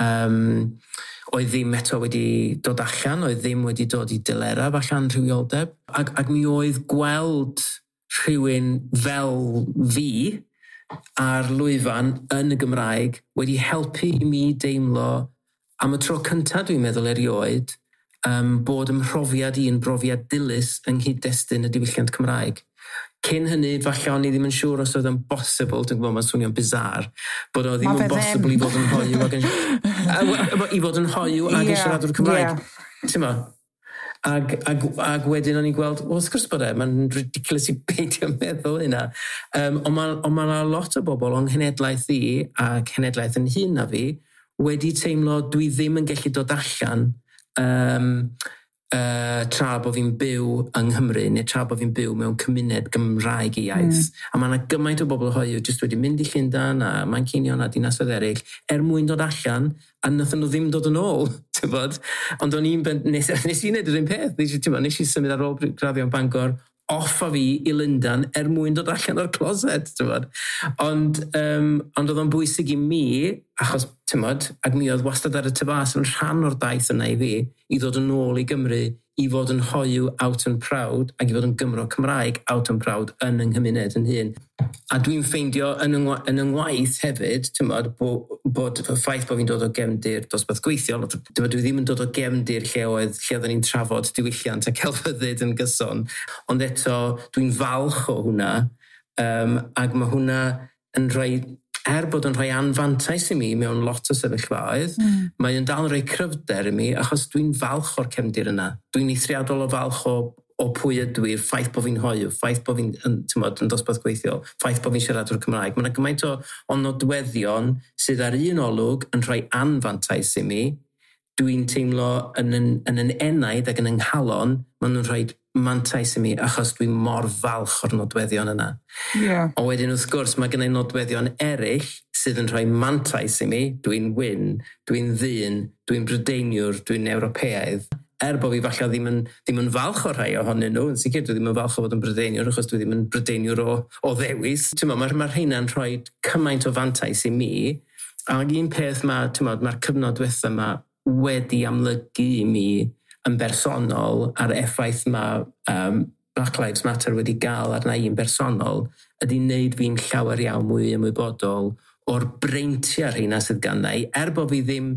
S3: oedd ddim eto wedi dod allan, oedd ddim wedi dod i delerau allan rhywioldeb. Ac mi oedd gweld rhywun fel fi ar lwyfan yn y Gymraeg wedi helpu i mi deimlo am y tro cyntaf dwi'n meddwl erioed bod ym mhrofiad i yn brofiad dilys yng nghyd-destun y diwylliant Cymraeg. Cyn hynny, falle o'n i ddim yn siŵr os oedd yn bosibl, dwi'n gwybod mae'n swnio'n bizarre, bod o ddim yn bosibl i fod yn hoyw ac yn, i fod yn hoyw ac yn siaradwr Cymraeg. Yeah. Ac wedyn o'n i'n gweld, wel, wrth gwrs bod e, mae'n ridiculous i beidio meddwl hynna. Ond mae yna lot o bobl o'n nghenedlaeth i a cenedlaeth yn hŷn na fi wedi teimlo dwi ddim yn gallu dod allan tra bod fi'n byw yng Nghymru neu tra bod fi'n byw mewn cymuned Gymraeg i iaith. A mae yna gymaint o bobl hoyw jyst wedi mynd i Llundain a Manceinion a dinasoedd eraill er mwyn dod allan a nathon nhw ddim dod yn ôl, tybod. Ond o'n i'n nes i wneud yr un peth, nes i symud ar ôl graddio yn Bangor off a fi i Lundain er mwyn dod allan o'r closet, tybod. Ond oedd o'n bwysig i mi, achos, tymod, ac mi oedd Wastad ar y Tŷ Fas yn rhan o'r daith yna i fi, i ddod yn ôl i Gymru, i fod yn hoyw out and proud, ac i fod yn Gymro Cymraeg out and proud yn yng nghymuned yn hun. A dwi'n ffeindio yn yng ngwaith hefyd, tymod, bod y ffaith bod fi'n dod o gefndir dosbarth gweithiol, tymod, dwi ddim yn dod o gefndir lle oedden ni'n trafod diwylliant a celfyddyd yn gyson, ond eto dwi'n falch o hwnna, ac mae hwnna yn rhoi, er bod yn rhoi anfantais i mi mewn lot o sefyllfaoedd, mae yn dal yn rhoi cryfder i mi, achos dwi'n falch o'r cefndir yna. Dwi'n eithriadol o falch o o pwy ydw i'r ffaith bod fi'n hoyw, ffaith bod fi'n yn dosbarth gweithiol, ffaith bod fi'n siaradwr Cymraeg. Mae yna gymaint o nodweddion sydd ar un olwg yn rhoi anfantais i mi. Dwi'n teimlo yn enaid ac yn yng nghalon, maen nhw'n rhoi mantais i mi achos dwi'n mor falch o'r nodweddion yna.
S2: Yeah.
S3: Ond wedyn wrth gwrs mae gennau nodweddion eraill sydd yn rhoi mantais i mi. Dwi'n wyn, dwi'n ddyn, dwi'n Brydeiniwr, dwi'n Ewropeaidd. Er bod fi falle ddim yn falch o'r rhai ohonyn nhw, yn sicr dwi ddim yn falch o fod yn Brydeiniwr achos dwi ddim yn Brydeiniwr o ddewis. Mae'r ma rheina'n rhoi cymaint o fantais i mi. Ac un peth mae'r cyfnod diwetha yma wedi amlygu i mi yn bersonol a'r effaith mae Black Lives Matter wedi gael arna i yn bersonol ydy wneud fi'n llawer iawn mwy ymwybodol o'r breintiau rheina sydd ganna i, er bod fi ddim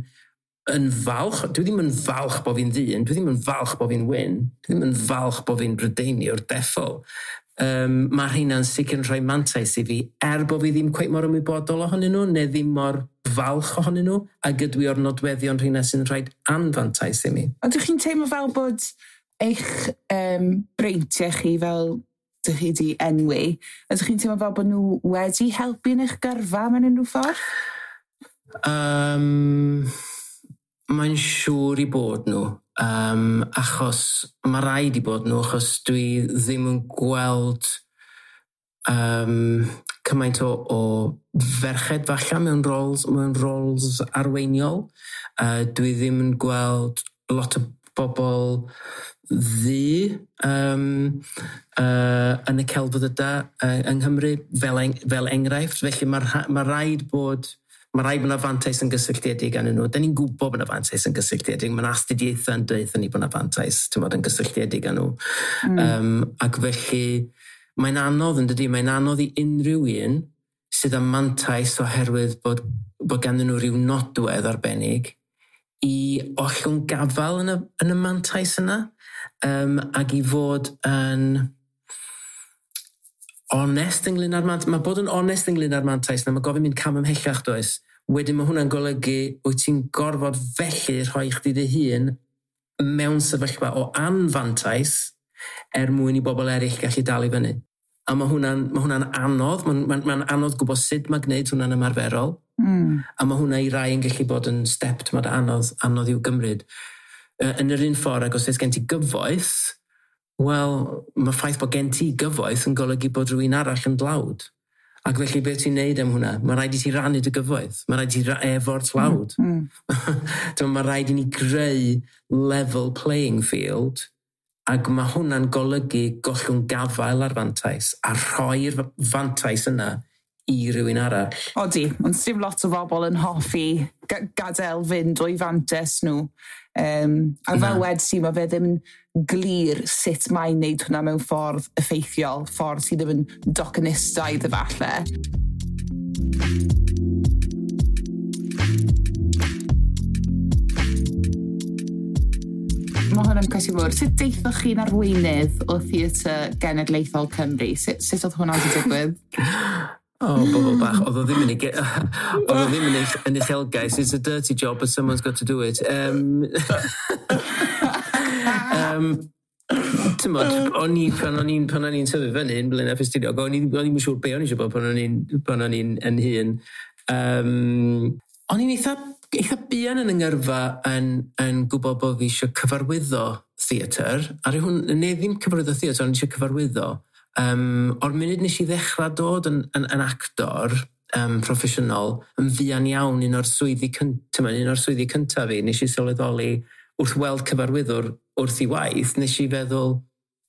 S3: yn falch, dwi ddim yn falch bod fi'n ddyn, dwi ddim yn falch bod fi'n wyn, dwi ddim yn falch bod fi'n Brydeiniwr deffol. Mae rheina'n sicr yn rhoi mantais i fi, er bod fi ddim cweit mor ymwybodol ohonyn nhw, neu ddim mor falch ohonyn nhw, a gydwi o'r nodweddion rheina sy'n rhoi anfantais i mi.
S2: Ond ydych chi'n teimlo fel bod eich breintiau chi fel dych chi wedi enwi, ydych chi'n teimlo fel bod nhw wedi helpu yn eich gyrfa mewn unrhyw ffordd?
S3: Mae'n siŵr i bod nhw, achos mae rhaid i bod nhw, achos dwi ddim yn gweld cymaint o ferched falle mewn roles arweiniol. Dwi ddim yn gweld lot o bobl ddu yn y celfyddydau yng Nghymru fel enghraifft. Felly mae rhaid bod yna fantais yn gysylltiedig â nhw. Da ni'n gwybod bod yna fantais yn gysylltiedig. Mae'n astudiaethau yn dweud ni bod yna fantais yn gysylltiedig â nhw. Ac felly mae'n anodd yn dydi, mae'n anodd i unrhyw un sydd â mantais oherwydd bod ganddyn nhw rhyw nodwedd arbennig i ollwng gafael yn y mantais yna, ac i fod yn onest ynglyn â'r mantais. Mae bod yn onest ynglyn â'r mantais, na mae gofyn mynd cam ymhellach does. Wedyn mae hwnna'n golygu wyt ti'n gorfod felly rhoi chdi dy hun mewn sefyllfa o anfantais er mwyn i bobl eraill gallu dal i fyny. A mae hwnna'n anodd, mae'n anodd gwybod sut mae gwneud hwnna'n ymarferol. A mae hwnna i rai yn gallu bod yn step anodd i'w gymryd. Yn yr un ffordd, ac os oes gen ti gyfoeth, wel, mae ffaith bod gen ti gyfoeth yn golygu bod rhywun arall yn dlawd. Ac felly beth ti'n neud am hwnna? Mae rhaid i ti rannu dy gyfoeth. Mae rhaid i ti efo'r tlawd. Mae rhaid i ni greu level playing field, ac mae hwnna'n golygu gollwng gafael ar fantais a rhoi'r fantais yna i rywun arall.
S2: Odi, ond dim lot o bobl yn hoffi gadael fynd o'i fantais nhw. A fel wedi ti, mae fe ddim yn glir sut mae'n neud hwnna mewn ffordd effeithiol, ffordd sydd ddim yn docenistaidd efallai. Mae hwn yn cwestiwn mawr. Sut deithoch chi'n arweinydd o Theatr Genedlaethol Cymru? Sut oedd hwnna wedi digwydd?
S3: O, bobl bach. Oedd o ddim yn uchelgais. It's a dirty job, but someone's got to do it. O'n i, pan o'n i'n tyfu fyny yn Blaenau Ffestiniog, o'n i'n siŵr be o'n i eisiau bod pan o'n i'n yn hŷn. O'n i'n eitha buan yn yngyrfa yn gwybod bod fi eisiau cyfarwyddo theatr. Ar hwn, neu ddim cyfarwyddo theatr, o'n i eisiau cyfarwyddo. O'r munud nes i ddechrau dod yn actor proffesiynol, yn fuan iawn, un o'r swyddi cyntaf fi, nes i sylweddoli wrth weld cyfarwyddwr wrth i waith, nes i feddwl,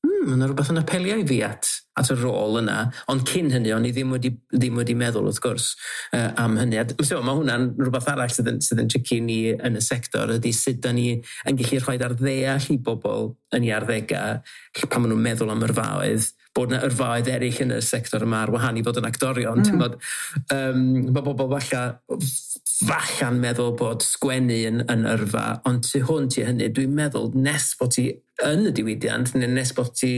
S3: mae yna rhywbeth yn apelio i fi at y rôl yna. Ond cyn hynny, o'n i ddim wedi meddwl, wrth gwrs, am hynny. So, mae hwnna'n rhywbeth arall sydd yn tricky ni yn y sector, ydy sut da ni yn gallu rhoi ar ddeall i bobl yn ei arddegau, pan maen nhw'n meddwl am yrfaoedd, bod yna yrfaoedd eraill yn y sector yma ar wahân i fod yn actorion. Mae bobl falla'n meddwl bod sgwennu yn yrfa, ond tu hwnt i hynny, dwi'n meddwl nes bod ti yn y diwydiant, neu nes bod ti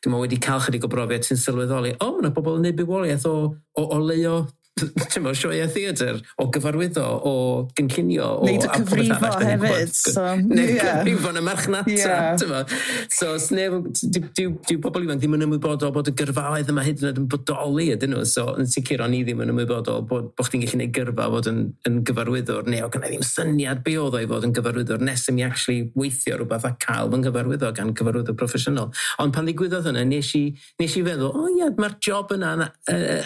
S3: wedi cael chydig o brofiad, ti'n sylweddoli, mae yna bobl yn neud bywoliaeth o leio ti'n sioeau theatr, o gyfarwyddo, o gynllunio. O,
S4: Neud y cyfrifo hefyd. So,
S3: Neud cyfrifo yn y marchnata. Yeah. So, sneb, dyw pobl ifanc ddim yn ymwybodol bod y gyrfaoedd yma hyd yn oed yn bodoli ydyn nhw. So, yn sicr o'n i ddim yn ymwybodol bod chdi'n gallu gwneud gyrfa fod yn gyfarwyddwr, neu o gynna i ddim syniad be oedd o i fod yn gyfarwyddwr nes i mi actually weithio rhywbeth a cael fy nghyfarwyddo gan gyfarwyddwr proffesiynol. Ond pan ddigwyddodd hynna, nes i feddwl, o ie, mae'r job yna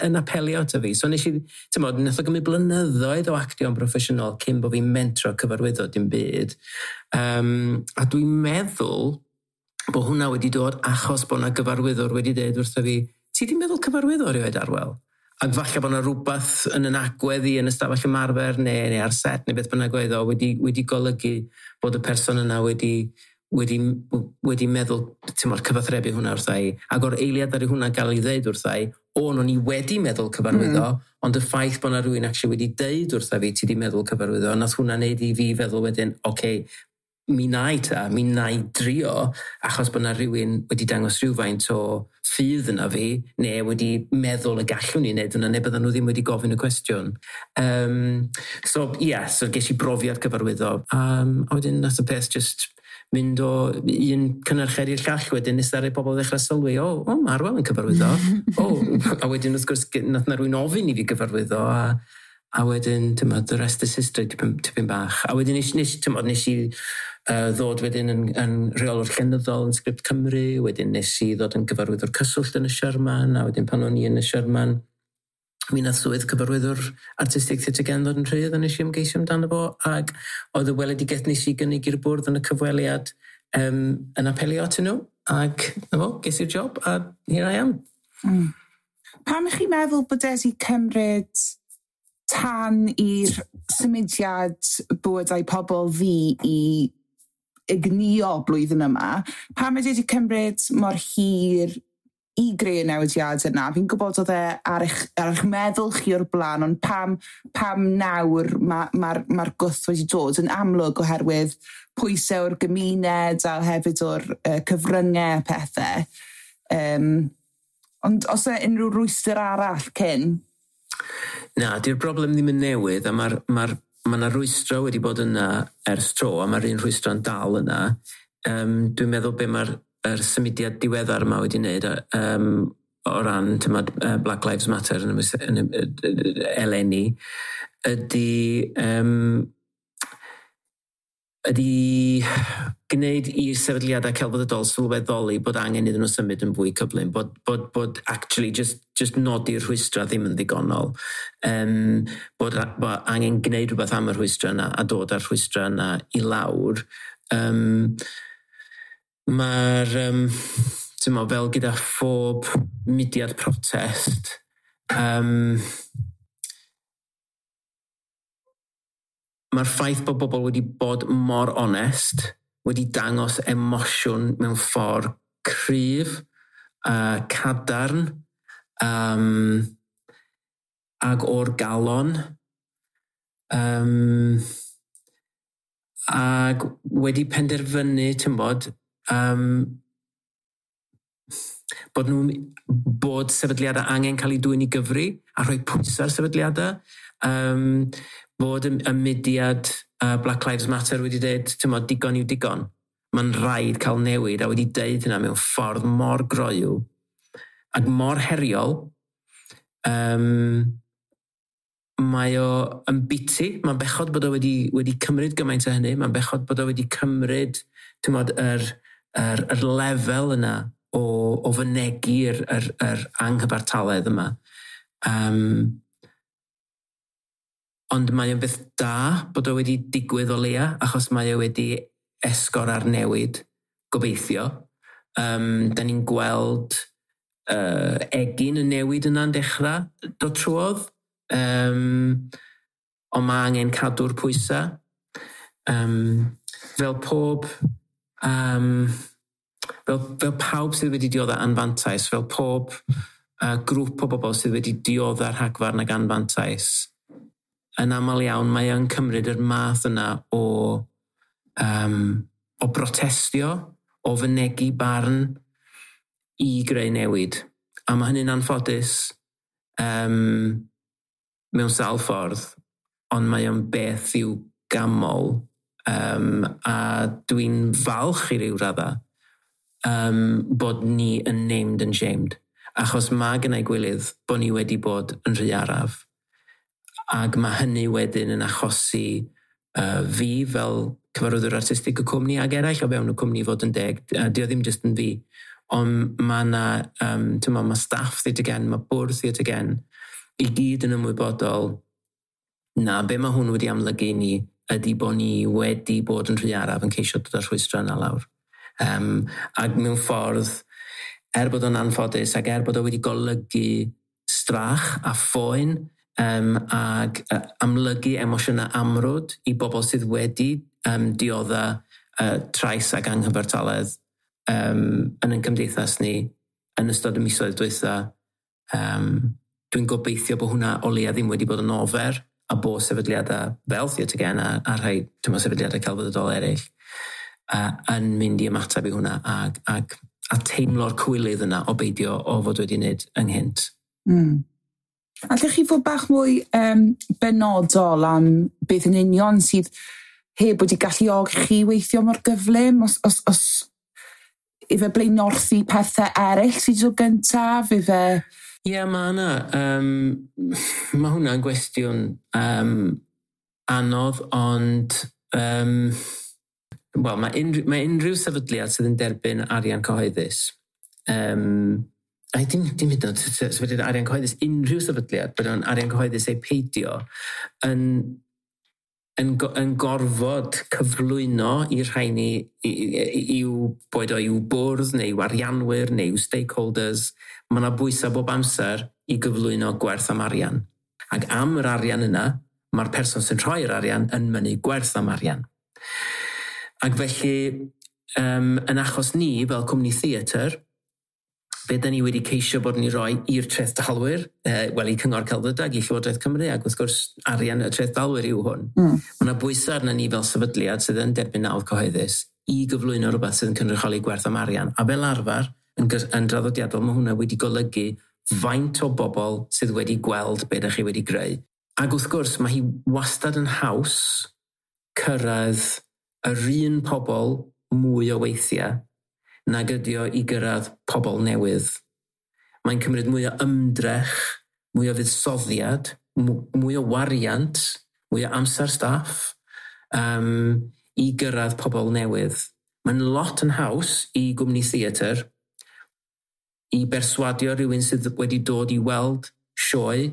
S3: yn apelio ato fi. So nes i, ti'n bod, nath o gymryd blynyddoedd o actio'n broffesiynol cyn bod fi'n mentro cyfarwyddo dim byd. A dwi'n meddwl bod hwnna wedi dod achos bod yna gyfarwyddwr wedi dweud wrtho fi, "Ti di meddwl cyfarwyddo erioed, Arwel?" Ac falle bod yna rhywbeth yn yn agwedd i yn ystafell ymarfer neu ar set neu beth bynnag oedd o wedi golygu bod y person yna wedi meddwl, ti'n modd, cyfathrebu hwnna wrtha i. Ac o'r eiliad ar hwnna gael ei ddeud wrtha i, o'n i wedi meddwl cyfarwyddo, ond y ffaith bod yna rhywun actually wedi deud wrtha fi, "Ti di meddwl cyfarwyddo?" nath hwnna wneud i fi feddwl wedyn, oce, okay, mi na i ta, mi na i drio, achos bod yna rhywun wedi dangos rhywfaint o ffydd yna fi, neu wedi meddwl y gallwn ni wneud hwnna, neu bydden nhw ddim wedi gofyn y cwestiwn. So, ie, yeah, so ges i brofiad cyfarwyddo. A wedyn nath y peth just mynd o un cynhyrchiad i'r llall wedyn nes ddaru pobl ddechrau sylwi, O, mae Arwel yn cyfarwyddo." O, a wedyn wrth gwrs nath na rhywun ofyn i fi gyfarwyddo, a wedyn, ti'n the rest is history tipyn bach. A wedyn nes i ddod wedyn yn rheolwr llenyddol yn Sgript Cymru, wedyn nes i ddod yn gyfarwyddwr cyswllt yn y Sherman, a wedyn pan o'n i yn y Sherman, mi nath swydd cyfarwyddwr artistig Theatr Gen ddod yn rhydd a nes i ymgeisio amdano fo, ac oedd y weledigaeth nes i gynnig i'r bwrdd yn y cyfweliad yn apelio atyn nhw, ac na fo, ges i'r job, a here I am.
S2: Pam ych chi'n meddwl bod wedi cymryd tan i'r symudiad bywydau pobl ddu i ignio blwyddyn yma? Pam ydy wedi cymryd mor hir i greu y newidiad yna? Fi'n gwybod oedd e ar eich meddwl chi o'r blaen, ond pam nawr mae'r ma gwth wedi dod yn amlwg oherwydd pwysau o'r gymuned a hefyd o'r cyfryngau a pethau? Ond os e unrhyw rwystr arall cyn?
S3: Na, di'r broblem ddim yn newydd, a ma 'na rwystro wedi bod yna ers tro, a mae'r un rhwystro'n dal yna. Dwi'n meddwl be mae'r yr symudiad diweddar yma wedi wneud o ran, tymod, Black Lives Matter yn eleni ydy gwneud i'r sefydliadau celfyddydol sylweddoli bod angen iddyn nhw symud yn fwy cyflym, bod actually just nodi'r rhwystra ddim yn ddigonol. Bod angen gwneud rhywbeth am y rhwystra yna a dod â'r rhwystra yna i lawr. Mae'r, ti'n mo, fel gyda phob mudiad protest, mae'r ffaith bod bobl wedi bod mor onest, wedi dangos emosiwn mewn ffordd cryf, cadarn, ag o'r galon, ag wedi penderfynu, ti'n bod, bod sefydliadau angen cael eu dwyn i gyfri a rhoi pwysau ar sefydliadau. Bod y mudiad Black Lives Matter wedi dweud, ti'n bod, digon yw digon. Mae'n rhaid cael newid a wedi deud hynna mewn ffordd mor groyw ac mor heriol. Mae o yn biti, mae'n bechod bod o wedi cymryd gymaint o hynny, mae'n bechod bod o wedi cymryd, ti'n bod, yr lefel yna o fynegi'r yr anghyfartaledd yma. Ond mae o'n beth da bod o wedi digwydd o leia, achos mae o wedi esgor ar newid, gobeithio. Da ni'n gweld egin y newid yna'n dechrau dod trwodd. Ond mae angen cadw'r pwysau. Fel pob... Um, fel, fel pawb sydd wedi dioddef anfantais, fel pob grŵp o bobl sydd wedi dioddef rhagfarn ag anfantais, yn aml iawn mae o'n cymryd yr math yna o brotestio, o fynegi barn i greu newid. A mae hynny'n anffodus. mewn sawl ffordd, ond mae o'n beth i'w ganmol, a dwi'n falch i ryw radda bod ni yn named and shamed. Achos mae gennau gwilydd bod ni wedi bod yn rhy araf. Ac mae hynny wedyn yn achosi fi fel cyfarwyddwr artistig y cwmni ac eraill o fewn y cwmni, fod yn deg. Dio ddim jyst yn fi. Ond mae yna, mae staff Theatr Gen, mae bwrdd Theatr Gen, i gyd yn ymwybodol na be mae hwn wedi amlygu ni ydy bod ni wedi bod yn rhy araf yn ceisio dod â'r rhwystrau yna lawr. Ac mewn ffordd, er bod o'n anffodus ac er bod o wedi golygu strach a phoen ac amlygu emosiynau amrwd i bobl sydd wedi diodda trais ac anghyfartaledd yn ein cymdeithas ni yn ystod y misoedd dwytha, dwi'n gobeithio bod hwnna o leia ddim wedi bod yn ofer a bod sefydliadau fel Theatr Gen a rhai, ti'n, sefydliadau celfyddydol eraill yn mynd i ymateb i hwnna a teimlo'r cywilydd yna o beidio o fod wedi wneud ynghynt.
S2: Allwch chi fod bach mwy benodol am beth yn union sydd heb wedi galluogi chi weithio mor gyflym? Os ife blaenorthu pethau eraill sydd o gyntaf, ife?
S3: Ie, yeah, mae yna. Mae hwnna'n gwestiwn anodd, ond wel, mae unrhyw sefydliad sydd yn derbyn arian cyhoeddus, a dim hyd yn oed sefydliad arian cyhoeddus, unrhyw sefydliad, bod o'n arian cyhoeddus ei peidio, yn gorfod cyflwyno i'r rhaini i'w, boed o i'w bwrdd neu i'w arianwyr neu i'w stakeholders, mae yna bwysau bob amser i gyflwyno gwerth am arian. Ac am yr arian yna, mae'r person sy'n rhoi'r arian yn mynnu gwerth am arian. Ac felly, yn achos ni fel cwmni theatr, be da ni wedi ceisio bod yn ei roi i'r trethdalwyr, wel, i Cyngor Celfyddydau, i Llywodraeth Cymru, ac wrth gwrs arian y trethdalwyr yw hwn. Mae yna bwysau arna ni fel sefydliad sydd yn derbyn nawdd cyhoeddus i gyflwyno rhywbeth sydd yn cynrychioli gwerth am arian. A fel arfer, yn draddodiadol, mae hwnna wedi golygu faint o bobl sydd wedi gweld be ydych chi wedi greu. Ac wrth gwrs, mae hi wastad yn haws cyrraedd yr un pobl mwy o weithiau nag ydi o i gyrraedd pobl newydd. Mae'n cymryd mwy o ymdrech, mwy o fuddsoddiad, mwy o wariant, mwy o amser staff i gyrraedd pobl newydd. Mae'n lot yn haws i gwmni theatr i berswadio rhywun sydd wedi dod i weld sioe,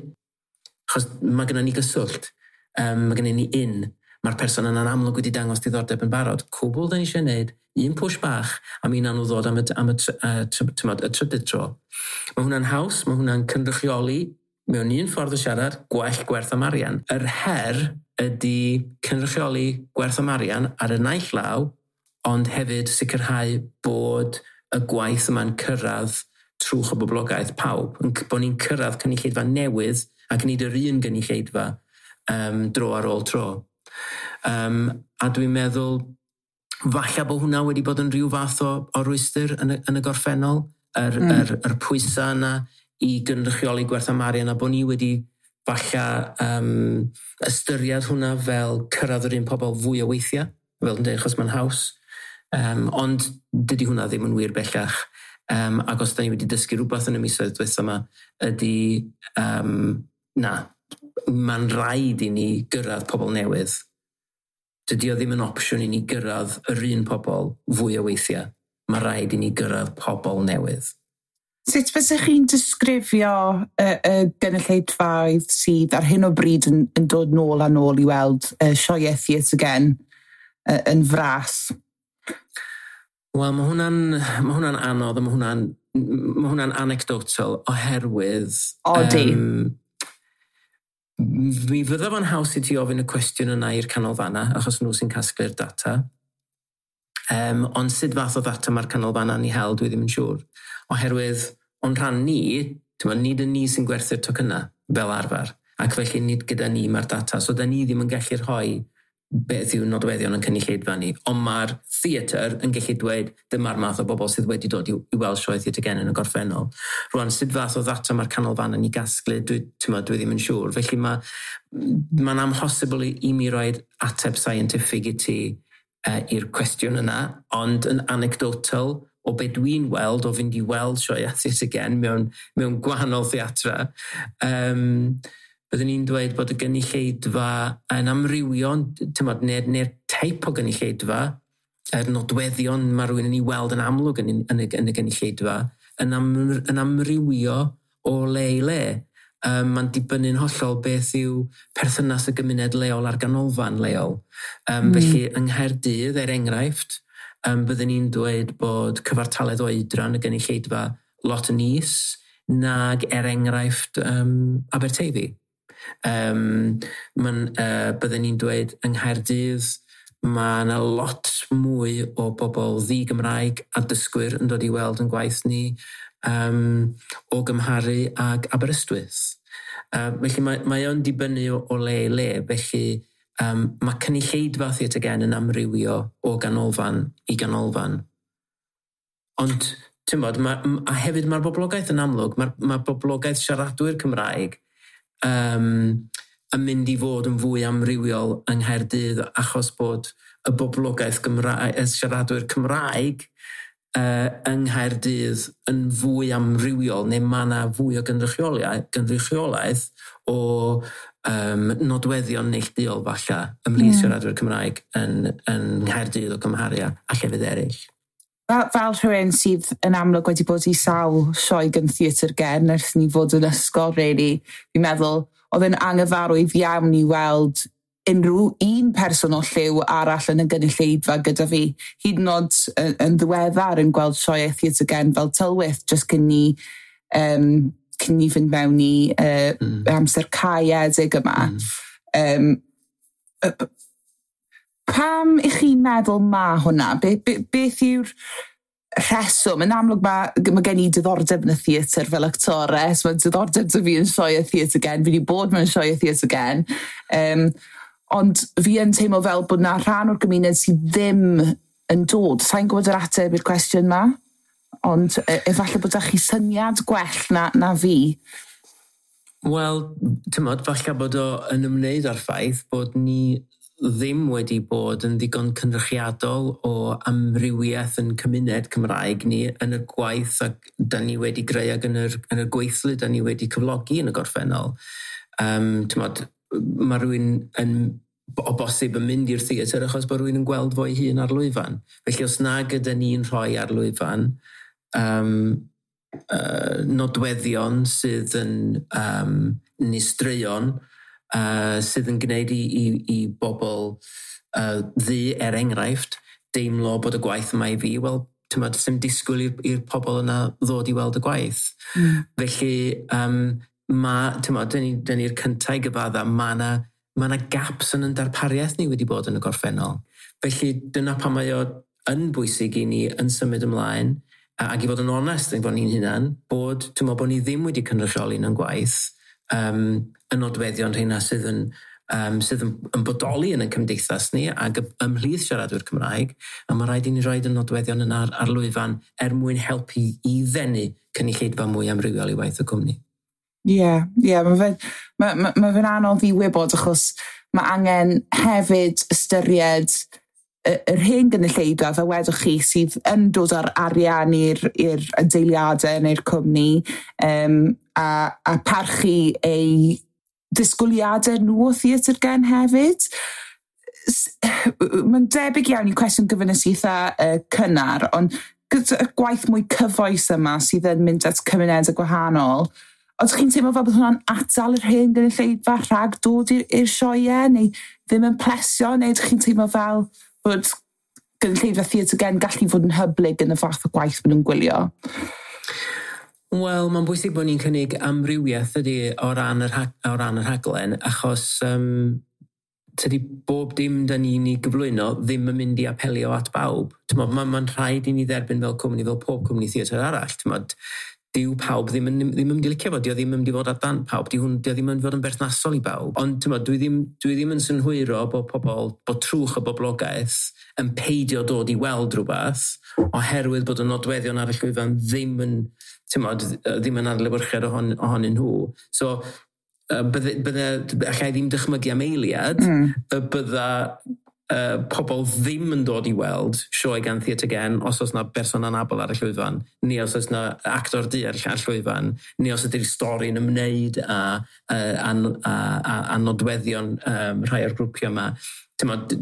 S3: achos mae gennym ni gyswllt, mae gennym ni un. Mae'r person yna'n amlwg wedi dangos diddordeb yn barod. Cwbl da ni eisiau gwneud, un push bach, a mi wnawn nhw ddod am y, tymod, y trydydd tro. Mae hwnna'n haws, mae hwnna'n cynrychioli mewn un ffordd o siarad, gwell gwerth am arian. Yr her ydy cynrychioli gwerth am arian ar y naill law, ond hefyd sicrhau bod y gwaith yma'n cyrraedd trwch o boblogaeth pawb. Bod ni'n cyrraedd cynulleidfa newydd ac nid yr un gynulleidfa dro ar ôl tro. A dwi'n meddwl falle bod hwnna wedi bod yn rhyw fath o rwystr yn y gorffennol, yr pwysau yna i gynrychioli gwerth am arian a bod ni wedi falle ystyried hwnna fel cyrraedd yr un pobl fwy o weithiau, fel yn dweud, achos mae'n haws. Ond dydy hwnna ddim yn wir bellach. Ac os da ni wedi dysgu rhywbeth yn y misoedd diwetha yma, ydy na, mae'n rhaid i ni gyrraedd pobl newydd. Dydy o ddim yn opsiwn i ni gyrraedd yr un pobl fwy o weithiau. Mae rhaid i ni gyrraedd pobl newydd.
S2: Sut fysech chi'n disgrifio y gynulleidfaoedd sydd ar hyn o bryd yn dod nôl a nôl i weld sioeau Theatr Gen yn fras?
S3: Wel, mae hwnna'n anodd a mae hwnna'n anecdotal oherwydd
S2: Odi.
S3: Mi fydda fo'n haws i ti ofyn y cwestiwn yna i'r canolfanna, achos nhw sy'n casglu'r data. Ond sut fath o ddata mae'r canolfanna'n ei hel, dwi ddim yn siŵr. Oherwydd, o'n rhan ni, ti'n, nid yn ni sy'n gwerthu'r tocynnau fel arfer. Ac felly nid gyda ni mae'r data. So da ni ddim yn gallu rhoi beth yw nodweddion yn cynulleidfa ni, ond mae'r theatr yn gallu dweud dyma'r math o bobl sydd wedi dod i weld sioe Theatr Gen yn y gorffennol. Rwan, sut fath o ddata mae'r canolfan yn ei gasglu, dwi ddim yn siŵr. Felly mae'n amhosibl i mi roed ateb scientific i ti i'r cwestiwn yna, ond yn anecdotal o be dwi'n weld, o fynd i weld sioe Theatr Gen mewn gwahanol theatra, byddwn ni'n dweud bod y gynulleidfa yn amrywio, neu'r teip o gynulleidfa, yr nodweddion mae rhywun yn ei weld yn amlwg yn y gynulleidfa, yn amrywio o le i le. Mae'n dibynnu'n hollol beth yw perthynas y gymuned leol a'r ganolfan leol. Felly yng Nghaerdydd, er enghraifft, byddwn ni'n dweud bod cyfartaledd oedran y gynulleidfa lot yn is nag er enghraifft Aberteifi. Byddwn ni'n dweud yng Nghaerdydd mae yna lot mwy o bobl ddi-Gymraeg a dysgwyr yn dod i weld yn gwaith ni o gymharu ag Aberystwyth. Felly mae o'n dibynnu o le i le, felly mae cynulleidfa Theatr Gen yn amrywio o ganolfan i ganolfan. Ond, ti'n bod, a hefyd mae'r boblogaeth yn amlwg, mae'r boblogaeth siaradwyr Cymraeg yn mynd i fod yn fwy amrywiol yng Nghaerdydd achos bod y boblogaeth Gymraeg, y siaradwyr Cymraeg yng Nghaerdydd yn fwy amrywiol, neu mae yna fwy o gynrychiolaeth o nodweddion neilltuol falle ymhlith siaradwyr Cymraeg yn Nghaerdydd o gymharu â llefydd eraill.
S2: Fel rhywun sydd yn amlwg wedi bod i sawl sioe gan Theatr Gen ers ni fod yn ysgol, really, fi'n meddwl oedd yn anghyfarwydd iawn i weld unrhyw un person o lliw arall yn y gynulleidfa gyda fi. Hyd yn oed yn ddiweddar yn gweld sioe Theatr Gen fel Tylwyth, jyst cyn ni fynd mewn i amser caeedig yma. Pam i chi'n meddwl ma hwnna? Beth yw'r rheswm? Yn amlwg mae gen i diddordeb yn y theatr fel actores, mae diddordeb 'da fi yn sioe Theatr Gen, fi wedi bod mewn sioe Theatr Gen. Ond fi yn teimlo fel bod na rhan o'r gymuned sydd ddim yn dod. Sa'n gwybod yr ateb i'r cwestiwn ma, ond efallai bod chi syniad gwell na fi.
S3: Wel, ti'n falle bod o yn ymwneud â'r ffaith bod ni ddim wedi bod yn ddigon cynrychiadol o amrywiaeth yn cymuned Cymraeg ni yn y gwaith ac da ni wedi greu ac yn y gweithlu da ni wedi cyflogi yn y gorffennol. Mae rhywun yn, o bosib yn mynd i'r theatr achos bod rhywun yn gweld fo'i hun ar lwyfan. Felly os nag ydy ni'n rhoi ar lwyfan nodweddion sydd yn neu straeon sydd yn gwneud i bobl ddu, er enghraifft, deimlo bod y gwaith yma i fi, wel, ti'n disgwyl i'r pobl yna ddod i weld y gwaith. Felly, dyn ni'r cyntaf i gyfadda, mae yna gaps yn yn darpariaeth ni wedi bod yn y gorffennol. Felly, dyna pan mae o yn bwysig i ni yn symud ymlaen, ac i fod yn onest yn bod ni'n hunan, bod, bod ni ddim wedi cynrychioli yn gwaith, y nodweddion rheina sydd yn bodoli yn y cymdeithas ni ac ymhlith siaradwyr Cymraeg, a mae rhaid i ni roed y nodweddion yna ar lwyfan er mwyn helpu i ddenu cynulleidfa mwy amrywiol i waith y cwmni.
S2: Ie, mae fe'n anodd i wybod achos mae angen hefyd ystyried yr hen gynulleidfa, fel wedwch chi, sydd yn dod â'r arian i'r adeiliadau neu'r cwmni, a parchu ei disgwyliadau nhw o Theatr Gen hefyd. Mae'n debyg iawn i cwestiwn gyfynes eitha cynnar, ond gyda'r gwaith mwy cyfoes yma sydd yn mynd at cymunedau gwahanol, ydych chi'n teimlo fel bod hwnna'n atal yr hen gynulleidfa rhag dod i'r sioeau, neu ddim yn plesio, neu ydych chi'n teimlo fel bod gynulleidfa Theatr Gen gallu fod yn hyblyg yn y fath o gwaith maen nhw'n gwylio?
S3: Wel, mae'n bwysig bod ni'n cynnig amrywiaeth ydy o ran y rhaglen, achos tydi bob dim da ni'n ei gyflwyno ddim yn mynd i apelio at bawb. Mae'n rhaid i ni dderbyn fel cwmni, fel pob cwmni theatr arall. Dyw pawb ddim yn mynd i licio fo, dio ddim yn mynd i fod ar dant pawb, dio ddim yn mynd i fod yn berthnasol i bawb. Ond ti'n dwi ddim yn synhwyro bod pobl, bod trwch y boblogaeth yn peidio dod i weld rhywbeth oherwydd bod y nodweddion ar y llwyfan ddim yn, ti'n ddim yn adlewyrchiad ohonyn nhw. So, bydde, allai ddim dychmygu am eiliad, y bydda pobl ddim yn dod i weld sioe gan Theatr Gen os oes na berson anabl ar y llwyfan, neu os oes na actor du ar y llwyfan, neu os ydy'r stori'n ymwneud â nodweddion rhai o'r grwpiau yma. T'mod,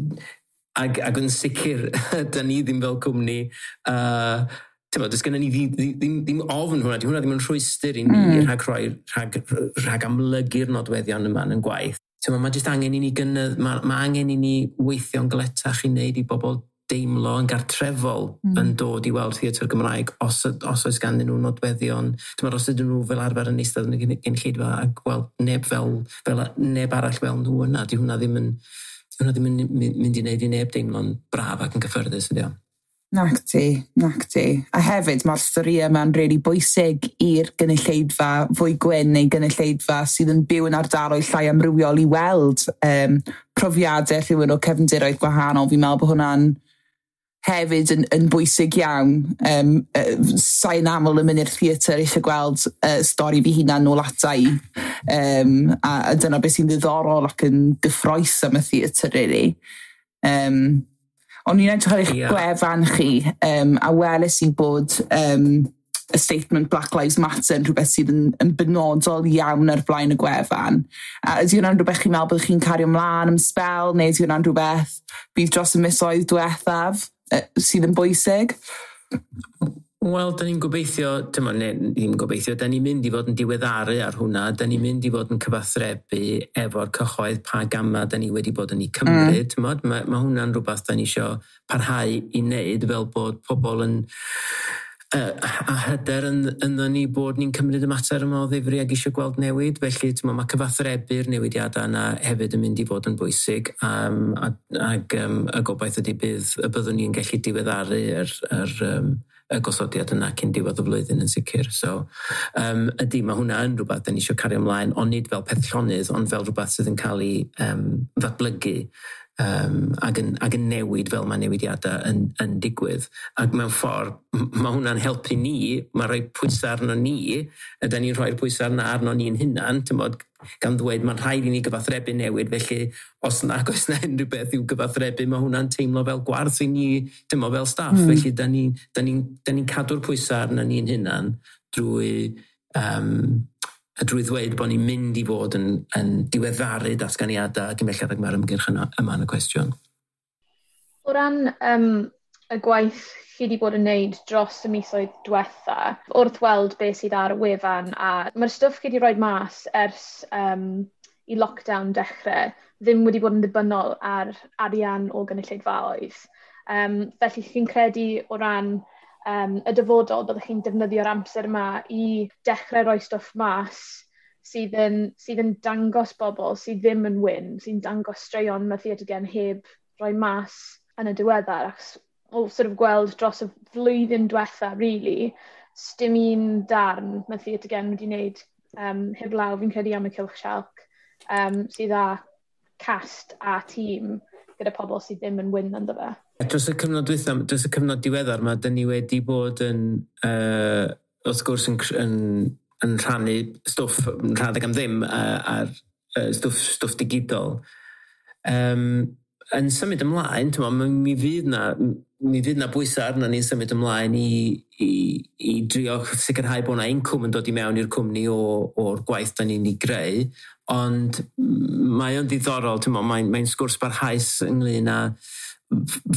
S3: ag yn sicr, da ni ddim fel cwmni, t'mod, does gennym ni ddim ofn hwnna, di hwnna ddim yn rhwystr i ni rhag amlygu'r nodweddion yma yn gwaith. T'mod, mae jyst angen i ni gynnydd, mae angen i ni weithio'n galetach i wneud i bobl deimlo yn gartrefol yn dod i weld theatr Gymraeg os oes ganddyn nhw nodweddion. T'mod, os ydyn nhw fel arfer yn eistedd yn y gynulleidfa a gweld neb arall fel nhw yna, di hwnna ddim yn mynd i wneud i neb deimlo'n braf ac yn gyffyrddus, ydy o.
S2: Nacdi, nacdi. A hefyd mae'r storïau yma'n really bwysig i'r gynulleidfa fwy gwyn neu gynulleidfa sydd yn byw yn ardaloedd llai amrywiol i weld profiadau rhywun o cefndiroedd gwahanol. Fi'n meddwl bod hwnna'n hefyd yn bwysig iawn. Sa'n aml yn mynd i'r theatr eisiau gweld stori fi hunan nôl ata i. A dyna beth sy'n ddiddorol ac yn gyffrous am y theatr, really. O'n i'n edrych ar eich gwefan chi, a weles i bod y statement "Black Lives Matter" yn rhywbeth sydd yn benodol iawn ar flaen y gwefan. A ydy hwnna'n rhywbeth chi'n meddwl bod chi'n cario ymlaen am sbel, neu ydy hwnna'n rhywbeth bydd dros y misoedd diwethaf sydd yn bwysig?
S3: Wel, da ni'n gobeithio, dyma, ne, ddim gobeithio, da ni'n mynd i fod yn diweddaru ar hwnna, da ni'n mynd i fod yn cyfathrebu efo'r cyhoedd pa gama da ni wedi bod yn ei cymryd. Mae hwnna'n rhywbeth da ni eisiau parhau i wneud fel bod pobl yn a hyder ynddo ni bod ni'n cymryd y mater yma o ddifri ac eisiau gweld newid. Felly t'mo, mae cyfathrebu'r newidiadau yna hefyd yn mynd i fod yn bwysig ac y gobaith ydy y byddwn ni'n gallu diweddaru yr y gosodiad yna cyn diwedd y flwyddyn yn sicr. So, ydy, mae hwnna yn rhywbeth da ni eisiau cario ymlaen, ond nid fel peth llonydd, ond fel rhywbeth sydd yn cael ei ddatblygu ac yn newid fel mae newidiadau yn digwydd. Ac mewn ffordd, mae hwnna'n helpu ni, mae rhoi pwysau arno ni, ydy ni'n rhoi'r pwysau arno, arno ni'n hunan, t'mod, gan ddweud mae'n rhaid i ni gyfathrebu newid, felly os nag oes na unrhyw beth i'w gyfathrebu, mae hwnna'n teimlo fel gwarth i ni, t'mod, fel staff. Felly da ni cadw'r pwysau arno ni'n hunan drwy ddweud bod ni'n mynd i fod yn diweddaru datganiadau ac yn belled ag mae'r ymgyrch yma yn y cwestiwn.
S5: O ran y gwaith chi wedi bod yn neud dros y misoedd diwetha, wrth weld beth sydd ar y wefan, a mae'r stwff chi wedi rhoi mas ers i lockdown dechrau ddim wedi bod yn ddibynnol ar arian o gynulleidfaoedd. Felly chi'n credu o ran y dyfodol byddwch chi'n defnyddio'r amser yma i dechrau rhoi stwff mas sydd yn dangos bobl sydd ddim yn wyn, sy'n dangos straeon mae Theatr Gen heb rhoi mas yn y diweddar? Achos o sort of gweld dros y flwyddyn diwetha, really, dim un darn mae Theatr Gen wedi wneud heblaw, fi'n credu, am y Cylch Sialc, sydd â cast a tîm gyda pobl sydd ddim yn wyn ynddo fe.
S3: Dros y cyfnod dwytha, dros y cyfnod diweddar yma, dyn ni wedi bod yn, wrth gwrs, yn rhannu stwff yn rhadeg am ddim ar stwff digidol. Yn symud ymlaen, t'mo, mi fydd na bwysau arno ni'n symud ymlaen i drio sicrhau bod na incwm yn dod i mewn i'r cwmni o'r gwaith da ni'n ei greu. Ond mae o'n ddiddorol, t'mo, mae'n sgwrs barhaus ynglyn â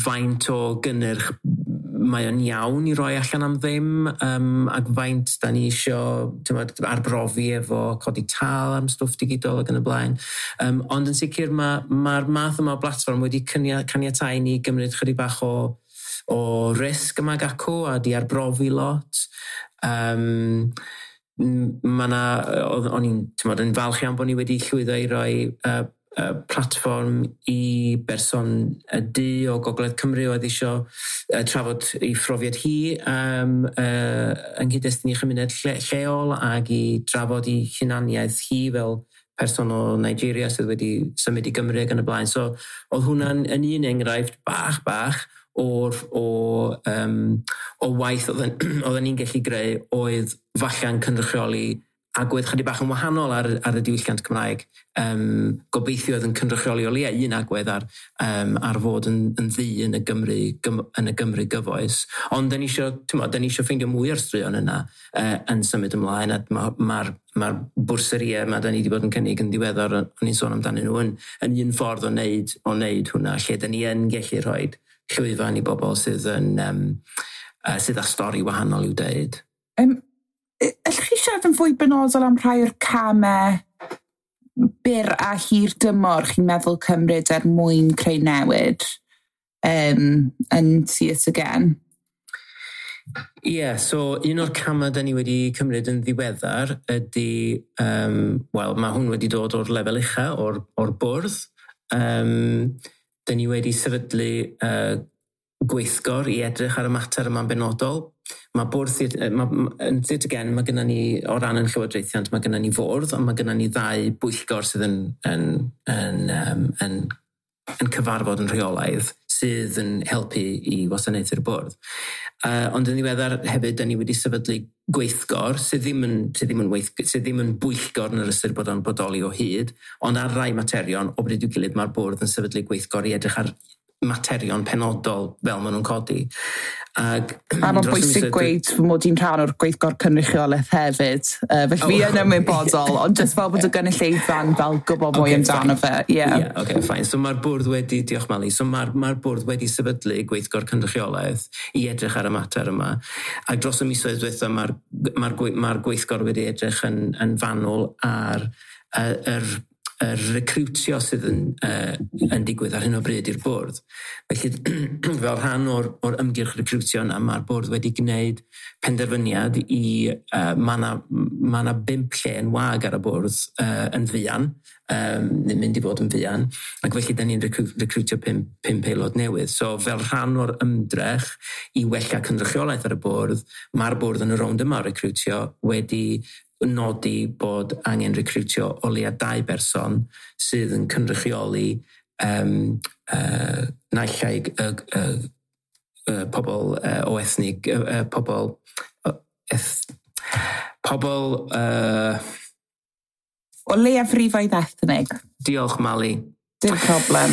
S3: faint o gynnyrch mae o'n iawn i roi allan am ddim ac faint da ni isio, t'mod, arbrofi efo codi tâl am stwff digidol ac yn y blaen. Ond yn sicr mae'r math yma o blatfform wedi caniatáu ni gymryd chydig bach o risg yma ac acw a di arbrofi lot. Ma' 'na, o'n i'n, t'mod, yn falch iawn bod ni wedi llwyddo i roi platfform i berson y du o Gogledd Cymru oedd eisiau trafod ei phrofiad hi yng nghyd-destun ei chymuned lleol ac i drafod ei hunaniaeth hi fel person o Nigeria sydd wedi symud i Gymru ac yn y blaen. So oedd hwnna'n yn un enghraifft bach o waith oedden ni'n gallu greu oedd falle'n cynrychioli agwedd chydig bach yn wahanol ar y diwylliant Cymraeg. Gobeithio oedd yn cynrychioli o leia un agwedd ar fod yn ddu yn y Gymru, yn y Gymru gyfoes. Ond da ni eisiau ffeindio mwy o'r straeon yna yn symud ymlaen, a mae'r bwrsariau yma da ni wedi bod yn cynnig yn ddiweddar, o'n i'n sôn amdanyn nhw, yn un ffordd o wneud hwnna, lle da ni yn gallu rhoi llwyfan i bobl sydd yn sydd â stori wahanol i'w deud.
S2: Allwch chi siarad yn fwy benodol am rhai o'r camau byr a hir dymor chi'n meddwl cymryd er mwyn creu newid yn Theatr Gen?
S3: Ie, so un o'r camau da ni wedi cymryd yn ddiweddar ydy, wel, mae hwn wedi dod o'r lefel ucha, o'r bwrdd. Da ni wedi sefydlu gweithgor i edrych ar y mater yma'n benodol. Mae bwrdd, yn Theatr Gen, mae gennym ni, o ran yn llywodraethiant, mae gennym ni fwrdd, ond mae gennym ni ddau bwyllgor sydd yn cyfarfod yn rheolaidd sydd yn helpu i wasanaethu'r bwrdd. Ond yn ddiweddar hefyd, da ni wedi sefydlu gweithgor sydd ddim yn bwyllgor yn yr ystyr bod o'n bodoli o hyd, ond ar rai materion, o bryd i'w gilydd, mae'r bwrdd yn sefydlu gweithgor i edrych ar materion penodol fel maen nhw'n codi.
S2: A mae'n bwysig gweud fy mod i'n rhan o'r gweithgor cynrychiolaeth hefyd. Felly fi yn ymwybodol, ond jyst fel bod y gynulleidfa'n fel gwybod mwy amdano fe.
S3: Yeah, okay, fine. So mae'r bwrdd wedi, diolch Mali, so mae'r bwrdd wedi sefydlu gweithgor cynrychiolaeth i edrych ar y mater yma. A dros y misoedd diwetha mae'r gweithgor wedi edrych yn fanwl ar yr recrwtio sydd yn digwydd ar hyn o bryd i'r bwrdd. Felly, fel rhan o'r ymgyrch recrwtio yna, mae'r bwrdd wedi gwneud penderfyniad i mae 'na 5 lle yn wag ar y bwrdd yn fuan, neu'n mynd i fod yn fuan, ac felly da ni'n recrwtio 5 aelod newydd. So fel rhan o'r ymdrech i wella cynrychiolaeth ar y bwrdd, mae'r bwrdd yn y rownd yma o recrwtio wedi nodi bod angen recrwtio o leia 2 berson sydd yn cynrychioli naill ai pobl o ethnig, pobl
S2: o leiafrifoedd ethnig.
S3: Diolch, Mali.
S2: Dim problem.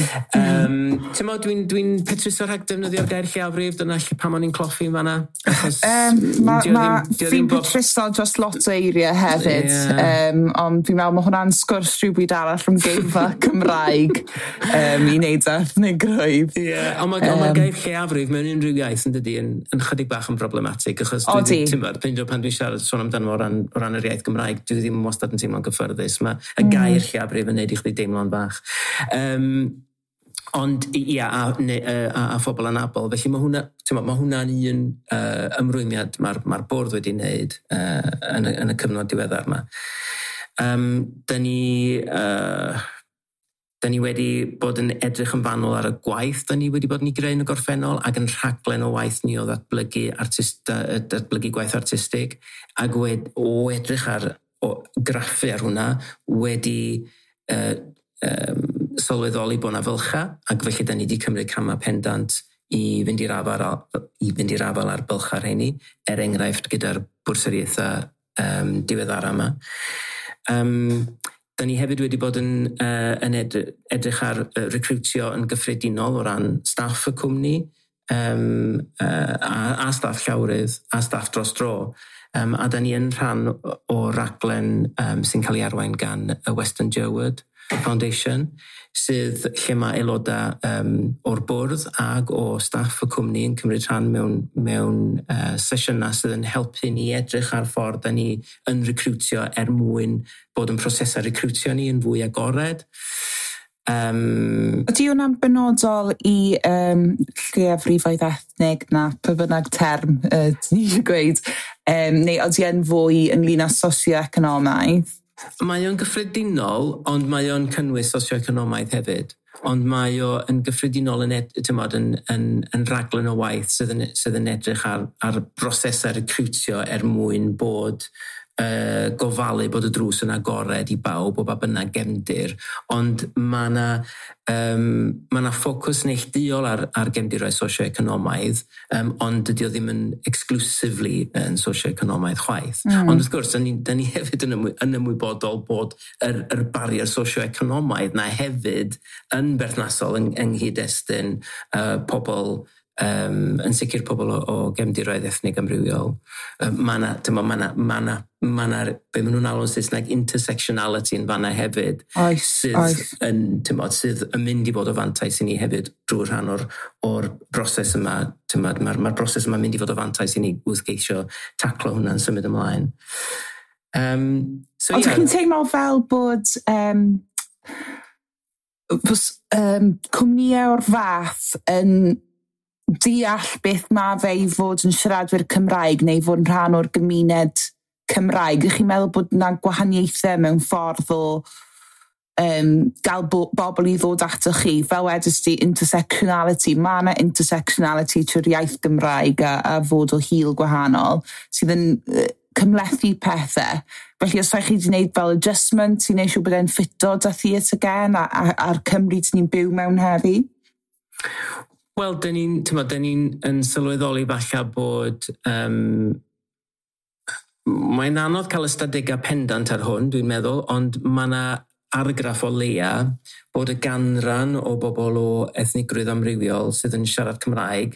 S3: Ti'n mo, dwi'n petruso rhag defnyddio'r gair lleiafrif, dyna lle pam o'n i'n cloffi yn fanna.
S2: Fi'n petruso dros lot o eiriau hefyd, ond fi'n meddwl mae hwnna'n sgwrs rhywbryd arall rhwng geirfa Cymraeg i wneud ethnigrwydd.
S3: Ie, ond mae gair lleiafrif mewn unrhyw iaith yn dydi yn chydig bach yn problematig, achos ti'n bod, pan dwi'n siarad sôn amdano o ran yr iaith Gymraeg, dwi ddim wastad yn teimlo'n gyffyrddus. Mae y gair lleiafrif yn neud i chdi deimlo'n fach. Ond ia, a phobl anabl. Felly mae hwnna'n un ymrwymiad mae'r bwrdd wedi wneud yn y cyfnod diweddar yma. Da ni wedi bod yn edrych yn fanwl ar y gwaith da ni wedi bod yn ei greu yn y gorffennol ac yn rhaglen o waith ni o ddatblygu, datblygu gwaith artistig, ac o edrych ar o graffu ar hwnna wedi sylweddoli bod 'na fylcha, ac felly da ni wedi cymryd camau pendant i fynd i'r afael ar bylcha rheini, er enghraifft gyda'r bwrsariaethau diweddara yma. Da ni hefyd wedi bod yn edrych ar recrwtio yn gyffredinol o ran staff y cwmni, a staff llawrydd, a staff dros dro. A da ni yn rhan o raglen sy'n cael ei arwain gan y Western Jerwood Foundation, sydd lle mae aelodau o'r bwrdd ag o staff y cwmni yn cymryd rhan mewn sesiynau sydd yn helpu ni edrych ar ffordd da ni yn recrwtio er mwyn bod yn prosesau recrwtio ni yn fwy agored.
S2: Ydy hwnna'n benodol i lleiafrifoedd ethnig na pa bynnag term ti'n eisiau gweud, neu ydy e'n fwy ynglyn â socio-economaidd?
S3: Mae o'n gyffredinol, ond mae o'n cynnwys socio-economaidd hefyd. Ond mae o yn gyffredinol yn raglen o waith sydd yn edrych ar brosesau recrwtio er mwyn bod gofalu bod y drws yn agored i bawb o ba bynnag gefndir, ond mae yna ma ffocws neilltuol ar gefndiroedd socio-economaidd, ond dydy o ddim yn exclusively yn socio-economaidd chwaith. Ond wrth gwrs, da ni hefyd yn ymwybodol bod yr barrier socio-economaidd na hefyd yn berthnasol yng nghyd-destun pobl, yn sicr pobl o gefndiroedd ethnig amrywiol. Mae yna, be maen nhw'n alw'n Saesneg, intersectionality yn fanna hefyd.
S2: Oes,
S3: sydd,
S2: oes.
S3: Sydd yn mynd i fod o fantais i ni hefyd drwy rhan o'r broses yma. Mae'r broses yma'n mynd i fod o fantais i ni wrth geisio taclo hwnna'n symud ymlaen.
S2: So, ond yeah. Chi'n teimlo fel bod cwmnïau o'r fath yn deall beth mae fe i fod yn siaradwyr Cymraeg neu fod yn rhan o'r gymuned Cymraeg? Ydych chi'n meddwl bod yna gwahaniaethau mewn ffordd o gael bobl i ddod atoch chi? Fel wedys ti, intersectionality. Mae yna intersectionality trwy'r iaith Gymraeg a fod o hil gwahanol sydd yn cymhlethu pethau. Felly os rhaid chi wedi gwneud fel adjustment i wneud siŵr bod e'n ffito da Theatr Gen a'r Cymru ni'n byw mewn heddi?
S3: Wel, dyn ni'n yn sylweddoli falle bod mae'n anodd cael ystadegau pendant ar hwn, dwi'n meddwl, ond mae yna argraff o leia bod y ganran o bobl o ethnigrwydd amrywiol sydd yn siarad Cymraeg,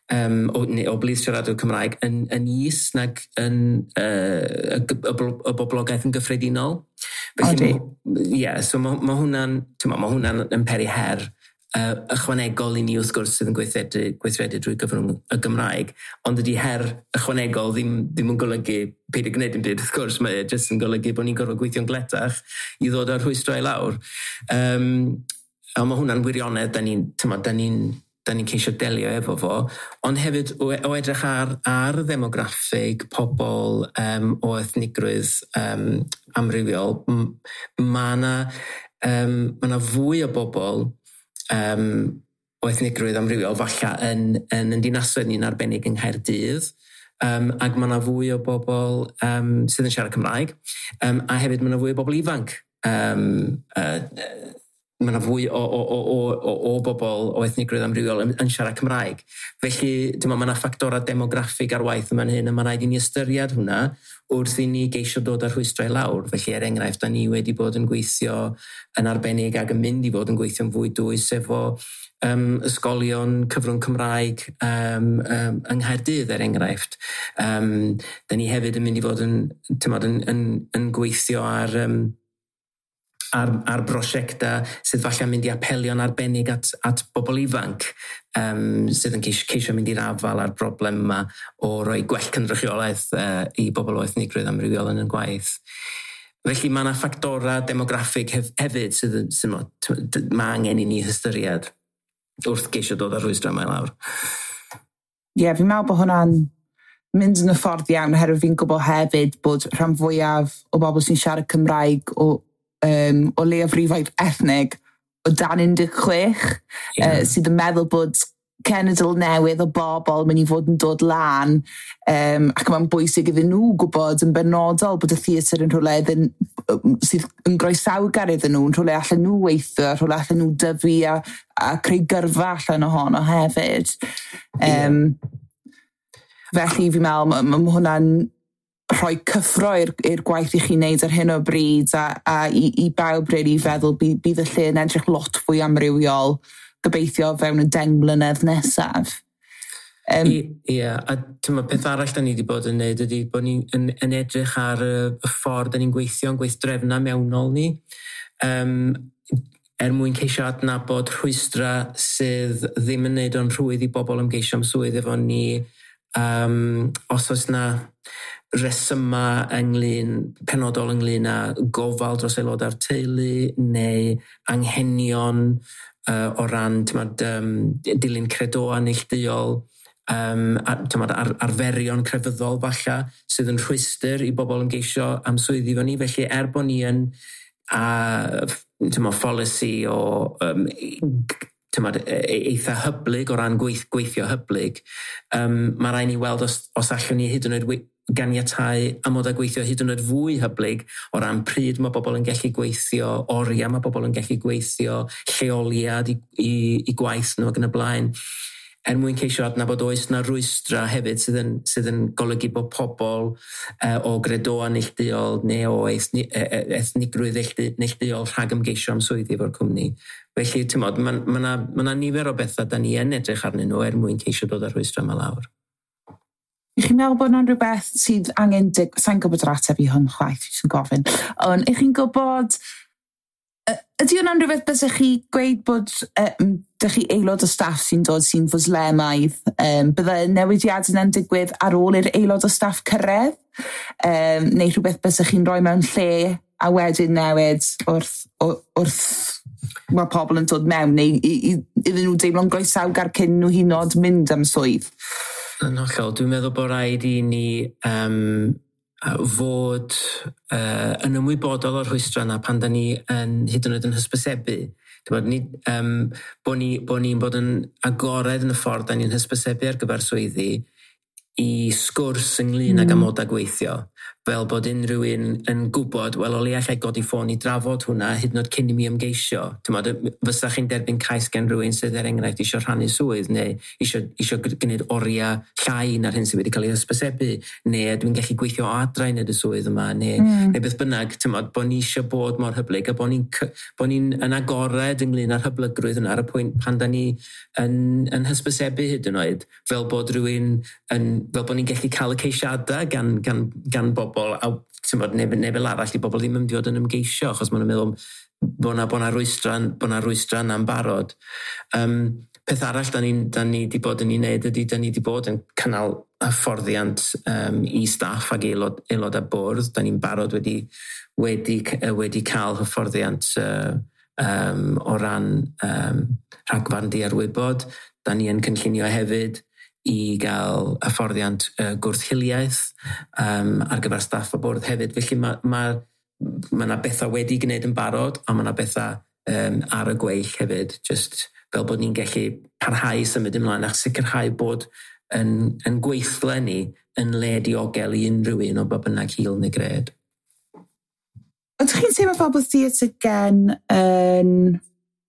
S3: o blith siaradwyr Cymraeg, yn is nag yn y boblogaeth yn gyffredinol. Felly, ie, so mae hwnna'n yn peri her ychwanegol i ni wrth gwrs sydd yn gweithredu drwy gyfrwng y Gymraeg, ond ydy her ychwanegol ddim yn golygu peidio gwneud dim byd, wrth gwrs, mae e jyst yn golygu bod ni'n gorfod gweithio'n gletach i ddod â'r rhwystrau i lawr. A mae hwnna'n wirionedd, da ni'n ceisio delio efo fo, ond hefyd o edrych ar ddemograffig pobl o ethnigrwydd amrywiol, mae yna fwy o bobl o ethnigrwydd amrywiol falle yn dinasoedd ni'n arbennig yng Nghaerdydd, ac mae yna fwy o bobl sydd yn siarad Cymraeg, a hefyd mae yna fwy o bobl ifanc. Mae yna fwy o bobl o ethnigrwydd amrywiol yn siarad Cymraeg. Felly, mae yna ffactorau demograffig ar waith yma'n hyn, a mae rhaid i ni ystyried hwnna wrth i ni geisio dod â'r rhwystrau lawr. Felly, er enghraifft, da ni wedi bod yn gweithio yn arbennig ac yn mynd i fod yn gweithio'n fwy dwys efo ysgolion cyfrwng Cymraeg yng Nghaerdydd, er enghraifft. Da ni hefyd yn mynd i fod yn gweithio ar brosiectau sydd falle'n mynd i apelio'n arbennig at bobl ifanc sydd yn ceisio mynd i'r afael â'r broblem yma o roi gwell cynrychiolaeth i bobl o ethnigrwydd amrywiol yn y gwaith. Felly mae yna ffactorau demograffig hefyd sydd mae angen i ni hystyried wrth geisio dod â'r rhwystrau yma i lawr.
S2: Ie, yeah, fi'n meddwl bod hwnna'n mynd yn y ffordd iawn, oherwydd fi'n gwybod hefyd bod rhan fwyaf o bobl sy'n siarad Cymraeg o leiafrifoedd ethnig o dan 16, sydd yn meddwl bod cenedl newydd o bobl mynd i fod yn dod lan, ac mae'n bwysig iddyn nhw gwybod yn benodol bod y theatr yn rhywle sydd yn groesawgar iddyn nhw, yn rhywle allan nhw weithio, rhywle allan nhw dyfu a creu gyrfa allan ohono hefyd. Felly fi'n meddwl, mae hwnna'n rhoi cyffro i'r gwaith i chi wneud ar hyn o bryd a i bawb really feddwl bydd y lle yn edrych lot fwy amrywiol gobeithio fewn y 10 mlynedd nesaf.
S3: Ie, a peth arall da ni wedi bod yn neud ydy bod ni'n yn edrych ar y ffordd da ni'n gweithio yn gweithdrefna mewnol ni, er mwyn ceisio adnabod rhwystra sydd ddim yn neud o'n rhwydd i bobl ymgeisio am swydd efo ni, os oes na resyma penodol ynglyn â gofal dros aelodau'r teulu neu anghenion o ran dilyn credoau neilltuol. arferion crefyddol falle sydd yn rhwystr i bobl ymgeisio am swyddi efo ni. Felly bod ni yn pholisi o eitha hyblyg o ran gweithio hyblyg, mae rhaid ni weld os allwn ni hyd yn oed ganiatáu amodau gweithio hyd yn oed fwy hyblyg o ran pryd mae bobl yn gallu gweithio, oriau mae bobl yn gallu gweithio, lleoliad i gwaith nhw ac yn y blaen, er mwyn ceisio adnabod oes na rwystra hefyd sydd yn golygu bod pobl o gredoau neilltuol neu o ethnigrwydd neilltuol rhag ymgeisio am swyddi efo'r cwmni. Felly, ti'mod, ma 'na nifer o bethau da ni yn edrych arnyn nhw er mwyn ceisio dod â'r rhwystra yma lawr.
S2: Ych chi'n meddwl bod yna'n rhywbeth sydd angen... Sa'n gwybod yr ateb i hwn chwaith, sy'n gofyn. Ond ych chi'n gwybod... Ydy hwnna'n rhywbeth bysech chi gweud bod dych chi aelod o staff sy'n dod sy'n fwslemaidd? Bydde newidiadau yna'n digwydd ar ôl i'r aelod o staff cyrraedd? Neu rhywbeth bysech chi'n rhoi mewn lle a wedyn newid wrth mae pobl yn dod mewn, neu iddyn nhw deimlo'n groesawgar cyn nhw hyd yn oed mynd am swydd?
S3: Yn hollol, dwi'n meddwl bod rhaid i ni fod yn ymwybodol o'r rhwystrau yna pan da ni yn, hyd yn oed yn hysbysebu. Bod ni'n bod yn agored yn y ffordd da ni'n hysbysebu ar gyfer swyddi i sgwrs ynglyn ag amodau gweithio, fel bod unrhyw un yn gwybod, wel, o leia allai godi ffôn i drafod hwnna hyd yn oed cyn i mi ymgeisio. Ti'mod, fysa chi'n derbyn cais gen rhywun sydd er enghraifft eisiau rhannu swydd neu eisiau gwneud oriau llai na'r hyn sydd wedi cael ei hysbysebu, neu dwi'n gallu gweithio o adra i wneud y swydd yma, neu beth bynnag. Ti'mod, bod ni eisiau bod mor hyblyg a bod ni'n yn agored ynglyn â'r hyblygrwydd yna ar y pwynt pan da ni yn hysbysebu hyd yn oed, fel bod rhywun yn, fel bod ni'n gallu cael y ceisiadau gan bobl, a ti'mod, neu fel arall i bobl ddim yn mynd i fod yn ymgeisio, achos maen nhw'n meddwl bod 'na rwystra yna'n barod. Peth arall da ni wedi bod yn ei wneud ydy, da ni wedi bod yn cynnal hyfforddiant i staff ac aelod a bwrdd. Da ni'n barod wedi cael hyfforddiant o ran rhagfarn diarwybod. Da ni yn cynllunio hefyd i gael hyfforddiant gwrth-hiliaeth ar gyfer staff a bwrdd hefyd. Felly mae yna bethau wedi gwneud yn barod, a mae yna bethau ar y gweill hefyd, just fel bod ni'n gallu parhau symud ymlaen a sicrhau bod yn gweithle ni yn le diogel i unrhyw un o ba bynnag hil neu gred.
S2: Ydych chi'n teimlo fel bod Theatr Gen yn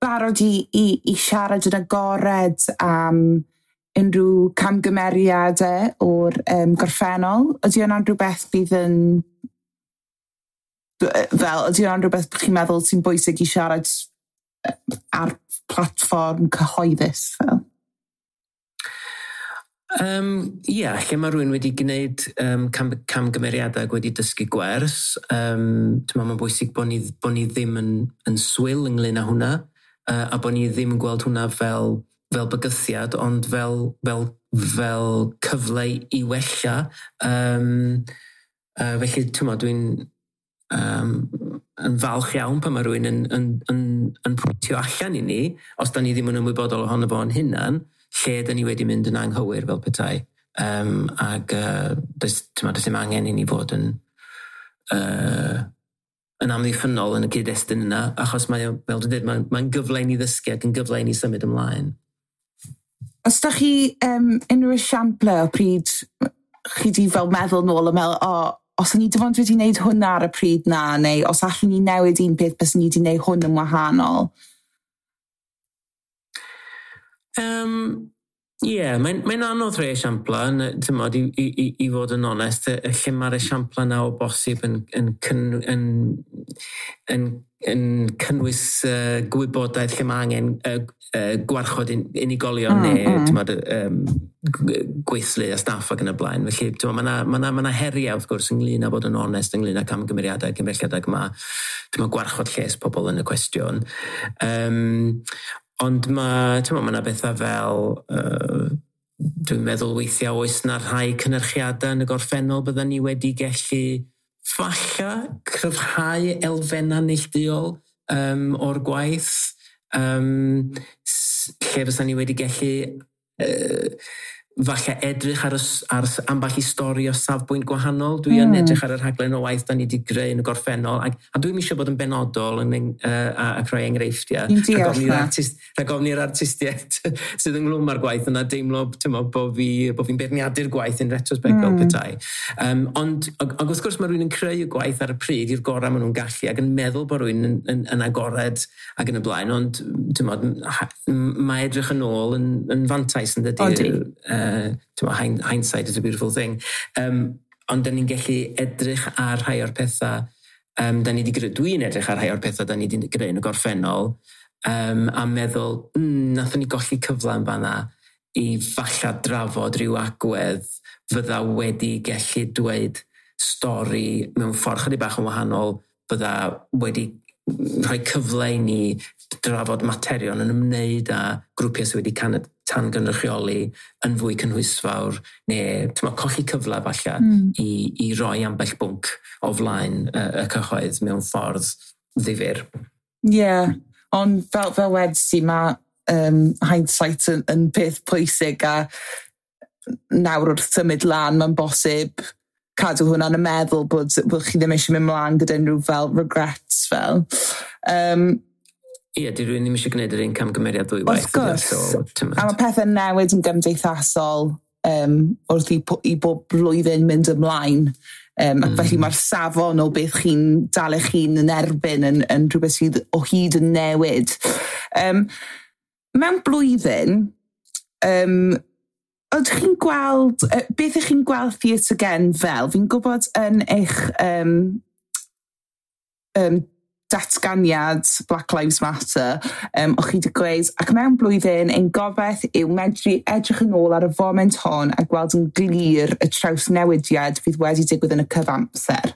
S2: barod i siarad yn agored am unrhyw camgymeriadau o'r gorffennol? Ydy hwnna'n rhywbeth bydd yn... Fel, ydy hwnna'n rhywbeth chi'n meddwl sy'n bwysig i siarad ar platfform cyhoeddus fel?
S3: Ie, lle mae rhywun wedi gwneud camgymeriadau ac wedi dysgu gwers, mae'n bwysig bod ni ddim yn swil ynglyn â hwnna, a bod ni ddim yn gweld hwnna fel bygythiad, ond fel cyfle i wella. Felly, dwi'n yn falch iawn pan mae rhywun yn pwyntio allan i ni, os da ni ddim yn ymwybodol ohono fo'n hunan, lle da ni wedi mynd yn anghywir fel petai. Ac does dim angen i ni fod yn amddiffynnol yn y cyd-destun yna, achos mae, fel dwi'n dweud, mae'n gyfle i ni ddysgu ac yn gyfle i ni symud ymlaen.
S2: Os da chi unrhyw esiample o pryd chi di fel meddwl nôl a meddwl, os o'n i dim ond wedi wneud hwnna ar y pryd na, neu os allwn ni newid un peth, byswn ni wedi wneud hwn yn wahanol?
S3: Ie, mae'n anodd rhoi esiampla, ti'mod, i fod yn onest, lle mae'r esiampla yna o bosib yn cynnwys gwybodaeth lle mae angen gwarchod unigolion neu ti'mod, gweithlu a staff ac yn y blaen. Felly mae yna heriau wrth gwrs ynglyn â bod yn onest ynglyn â camgymeriadau cymhelliadau mae ti'mod, gwarchod lles pobl yn y cwestiwn. Ond mae yna bethau fel, dwi'n meddwl weithiau oes na rhai cynyrchiadau yn y gorffennol bydden ni wedi gallu falla cryfhau elfennau neilltuol o'r gwaith, lle fysa ni wedi gallu Falle edrych ar ambell i stori o safbwynt gwahanol. Dwi yn edrych ar y rhaglen o waith da ni wedi greu yn y gorffennol, a dwi'n eisiau bod yn benodol ac rhoi enghreifftiau. Rhag ofn i'r artistiaid sydd ynghlwm â'r gwaith yna deimlo, tymo, bo fi'n beirniadu'r gwaith yn retrospect fel petai. Ond wrth gwrs mae rhywun yn creu y gwaith ar y pryd i'r gorau maen nhw'n gallu ac yn meddwl bod rhywun yn agored ac yn y blaen, ond tymo, mae edrych yn ôl yn fantais, yn dydy? Hindsight is a beautiful thing. Ond da ni'n gallu edrych ar rhai o'r pethau da ni wedi greu, dwi'n edrych ar rhai o'r pethau da ni wedi greu yn y gorffennol a meddwl, nathon ni golli cyfle yn fanna i falla drafod rhyw agwedd fydda wedi gallu dweud stori mewn ffordd chydig bach yn wahanol, fydda wedi rhoi cyfle i ni drafod materion yn ymwneud â grwpiau sydd wedi tan gynrychioli yn fwy cynhwysfawr, neu tyma, colli cyfle falle i roi ambell bwnc o flaen y cyhoedd mewn ffordd ddifyr.
S4: Ie, yeah, ond fel wedest ti, mae hindsight yn peth pwysig a nawr wrth symud lan, mae'n bosib cadw hwnna'n y meddwl bod chi ddim eisiau mynd mlaen gyda unrhyw fel regrets fel.
S3: Ie, di rhywun ddim eisiau gwneud yr un camgymeriad ddwywaith.
S4: Wrth gwrs. So, a mae pethau'n newid yn gymdeithasol wrth i bob blwyddyn mynd ymlaen. Ac felly mae'r safon o beth chi'n dal eich hun yn erbyn yn rhywbeth sydd o hyd yn newid. Mewn blwyddyn, ydych chi'n gweld, beth ydych chi'n gweld Theatr Gen fel? Fi'n gwybod yn eich datganiad Black Lives Matter, o'ch chi wedi gweud, "Ac mewn blwyddyn, ein gobaith yw medru edrych yn ôl ar y foment hon a gweld yn glir y trawsnewidiad fydd wedi digwydd yn y cyfamser."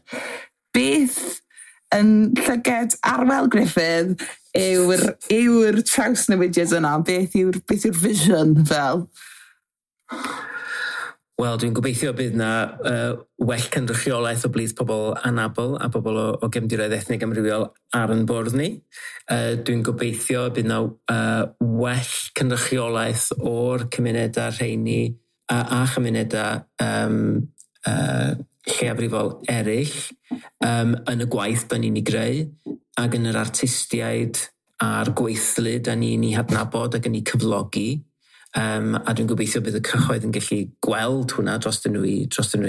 S4: Beth yn llyged Arwel Gruffydd yw'r trawsnewidiad yna? Beth yw'r vision fel?
S3: Wel, dwi'n gobeithio bydd na well cynrychiolaeth o blith pobl anabl a pobl o gefndiroedd ethnig amrywiol ar yn bwrdd ni. Dwi'n gobeithio bydd na well cynrychiolaeth o'r cymunedau rheini a chymunedau lleiafrifol eraill yn y gwaith da ni'n ei greu ac yn yr artistiaid a'r gweithlu da ni'n ei hadnabod ac yn ei cyflogi. A dwi'n gobeithio bydd y cyhoedd yn gallu gweld hwnna dros nhw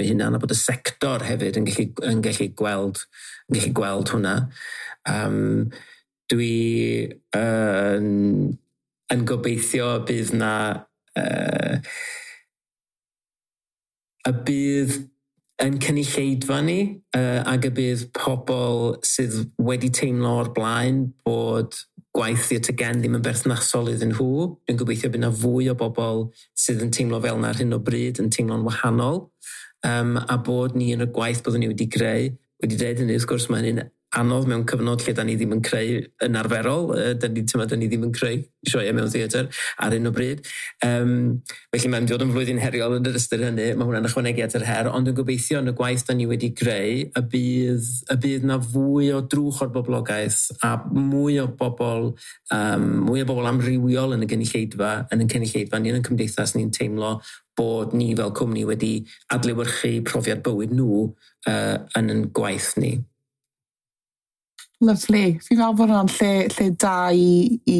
S3: hunan, a bod y sector hefyd yn gallu gweld hwnna. Dwi yn gobeithio bydd na y bydd yn cynulleidfa ni ac y bydd pobl sydd wedi teimlo o'r blaen bod gwaith Theatr Gen ddim yn berthnasol iddyn nhw. Dwi'n gobeithio bydd yna fwy o bobl sydd yn teimlo fel yna ar hyn o bryd yn teimlo'n wahanol. A bod ni yn y gwaith byddwn ni wedi greu, wedi dweud hynny, wrth gwrs, mae hynny'n anodd mewn cyfnod lle da ni ddim yn creu yn arferol. Da ni ddim yn creu sioeau mewn theatr ar hyn o bryd. Felly mae'n dod yn flwyddyn heriol yn yr ystyr hynny. Mae hwnna'n ychwanegu at yr her, ond dwi'n gobeithio yn y gwaith da ni wedi greu y bydd na fwy o drwch o'r boblogaeth a mwy o bobl amrywiol yn y gynulleidfa, yn y cynulleidfa ni yn y cymdeithas ni'n teimlo bod ni fel cwmni wedi adlewyrchu profiad bywyd nhw yn yn gwaith ni.
S4: Lovely. Fi'n meddwl bod hwnna'n lle da i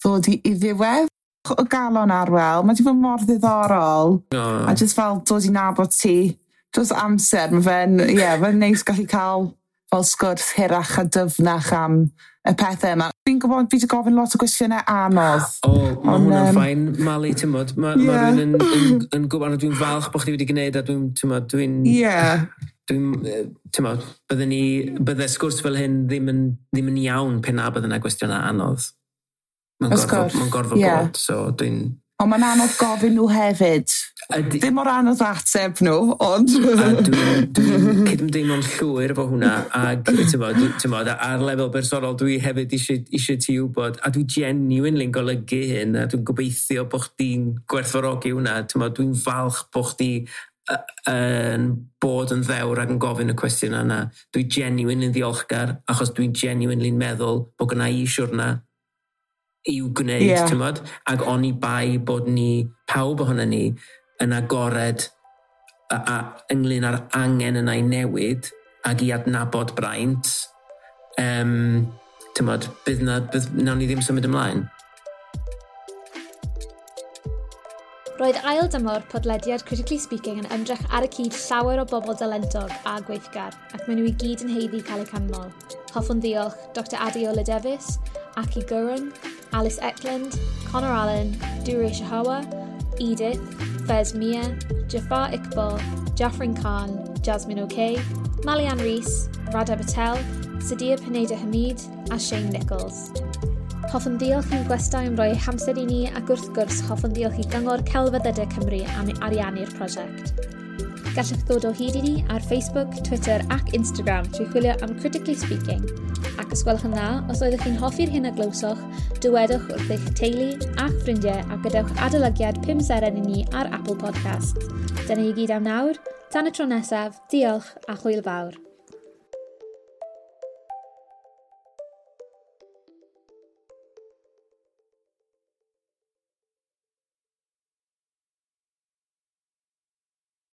S4: ddod i ddiwedd. O galon, Arwel, mae wedi bod mor ddiddorol.
S3: Oh.
S4: A just fel dod i nabod ti dros amser, mae fe'n, ie, yeah, fe'n neis gallu cael fel sgwrs hirach a dyfnach am y pethau yma. Fi'n gwybod, fi wedi gofyn lot o gwestiynau anodd.
S3: O, mae hwnna'n fine, Mali, ti'n mod. Mae ma rhywun yn gwybod, dwi'n falch bod chdi wedi gwneud a dwi'n, ti'n mod, dwi'n Dwi'n, ti'n mod, bydde sgwrs fel hyn ddim yn iawn pe na bydde yna gwestiynau anodd. Mae'n gorfod bod, so dwi'n
S4: Ond mae'n anodd gofyn nhw hefyd. Ddim mor anodd ateb nhw, ond
S3: A dwi'n cydymdeimlo'n llwyr efo hwnna, ac ti'n bod, ar lefel bersonol dwi hefyd eisiau ti wybod, a dwi genuinely'n golygu hyn, a dwi'n gobeithio bod chdi'n gwerthfawrogi hwnna, ti'n bod, dwi'n falch bod chdi yn bod yn ddewr ac yn gofyn y cwestiwn yna. Dwi genuinely'n ddiolchgar, achos dwi'n genuinely'n meddwl bod gynna i siwrna. I'w gwneud, yeah. Ac oni bai bod ni, pawb ohono ni, yn agored a ynglyn â'r angen yna i newid ac i adnabod braint, tymod, bydd na, bydd, nawn ni ddim symud ymlaen.
S6: Roedd ail dymor podlediad Critically Speaking yn ymdrech ar y cyd llawer o bobl dalentog a gweithgar, ac maen nhw i gyd yn haeddu cael eu canmol. Hoffwn ddiolch Dr Adeola Davies, Aki Gurung, Alice Eklund, Connor Allen, Dure Shahawa, Edith, Fez Mia, Jafar Iqbal, Jafrin Khan, Jasmine O'Kay, Malian Rees, Radha Patel, Sadia Pineda Hamid a Shane Nichols. Hoffwn ddiolch i'n gwestai am roi hamser i ni ac wrth gwrs hoffwn ddiolch i Gyngor Celfyddydau Cymru am ariannu'r prosiect. Gallwch ddod o hyd i ni ar Facebook, Twitter ac Instagram trwy chwilio am Critically Speaking. Ac os gwelwch yn dda, os oeddech chi'n hoffi'r hyn a glywsoch, dywedwch wrth eich teulu a'ch ffrindiau a gadewch adolygiad 5 seren i ni ar Apple Podcasts. Dyna i gyd am nawr. Tan y tro nesaf, diolch a hwyl fawr.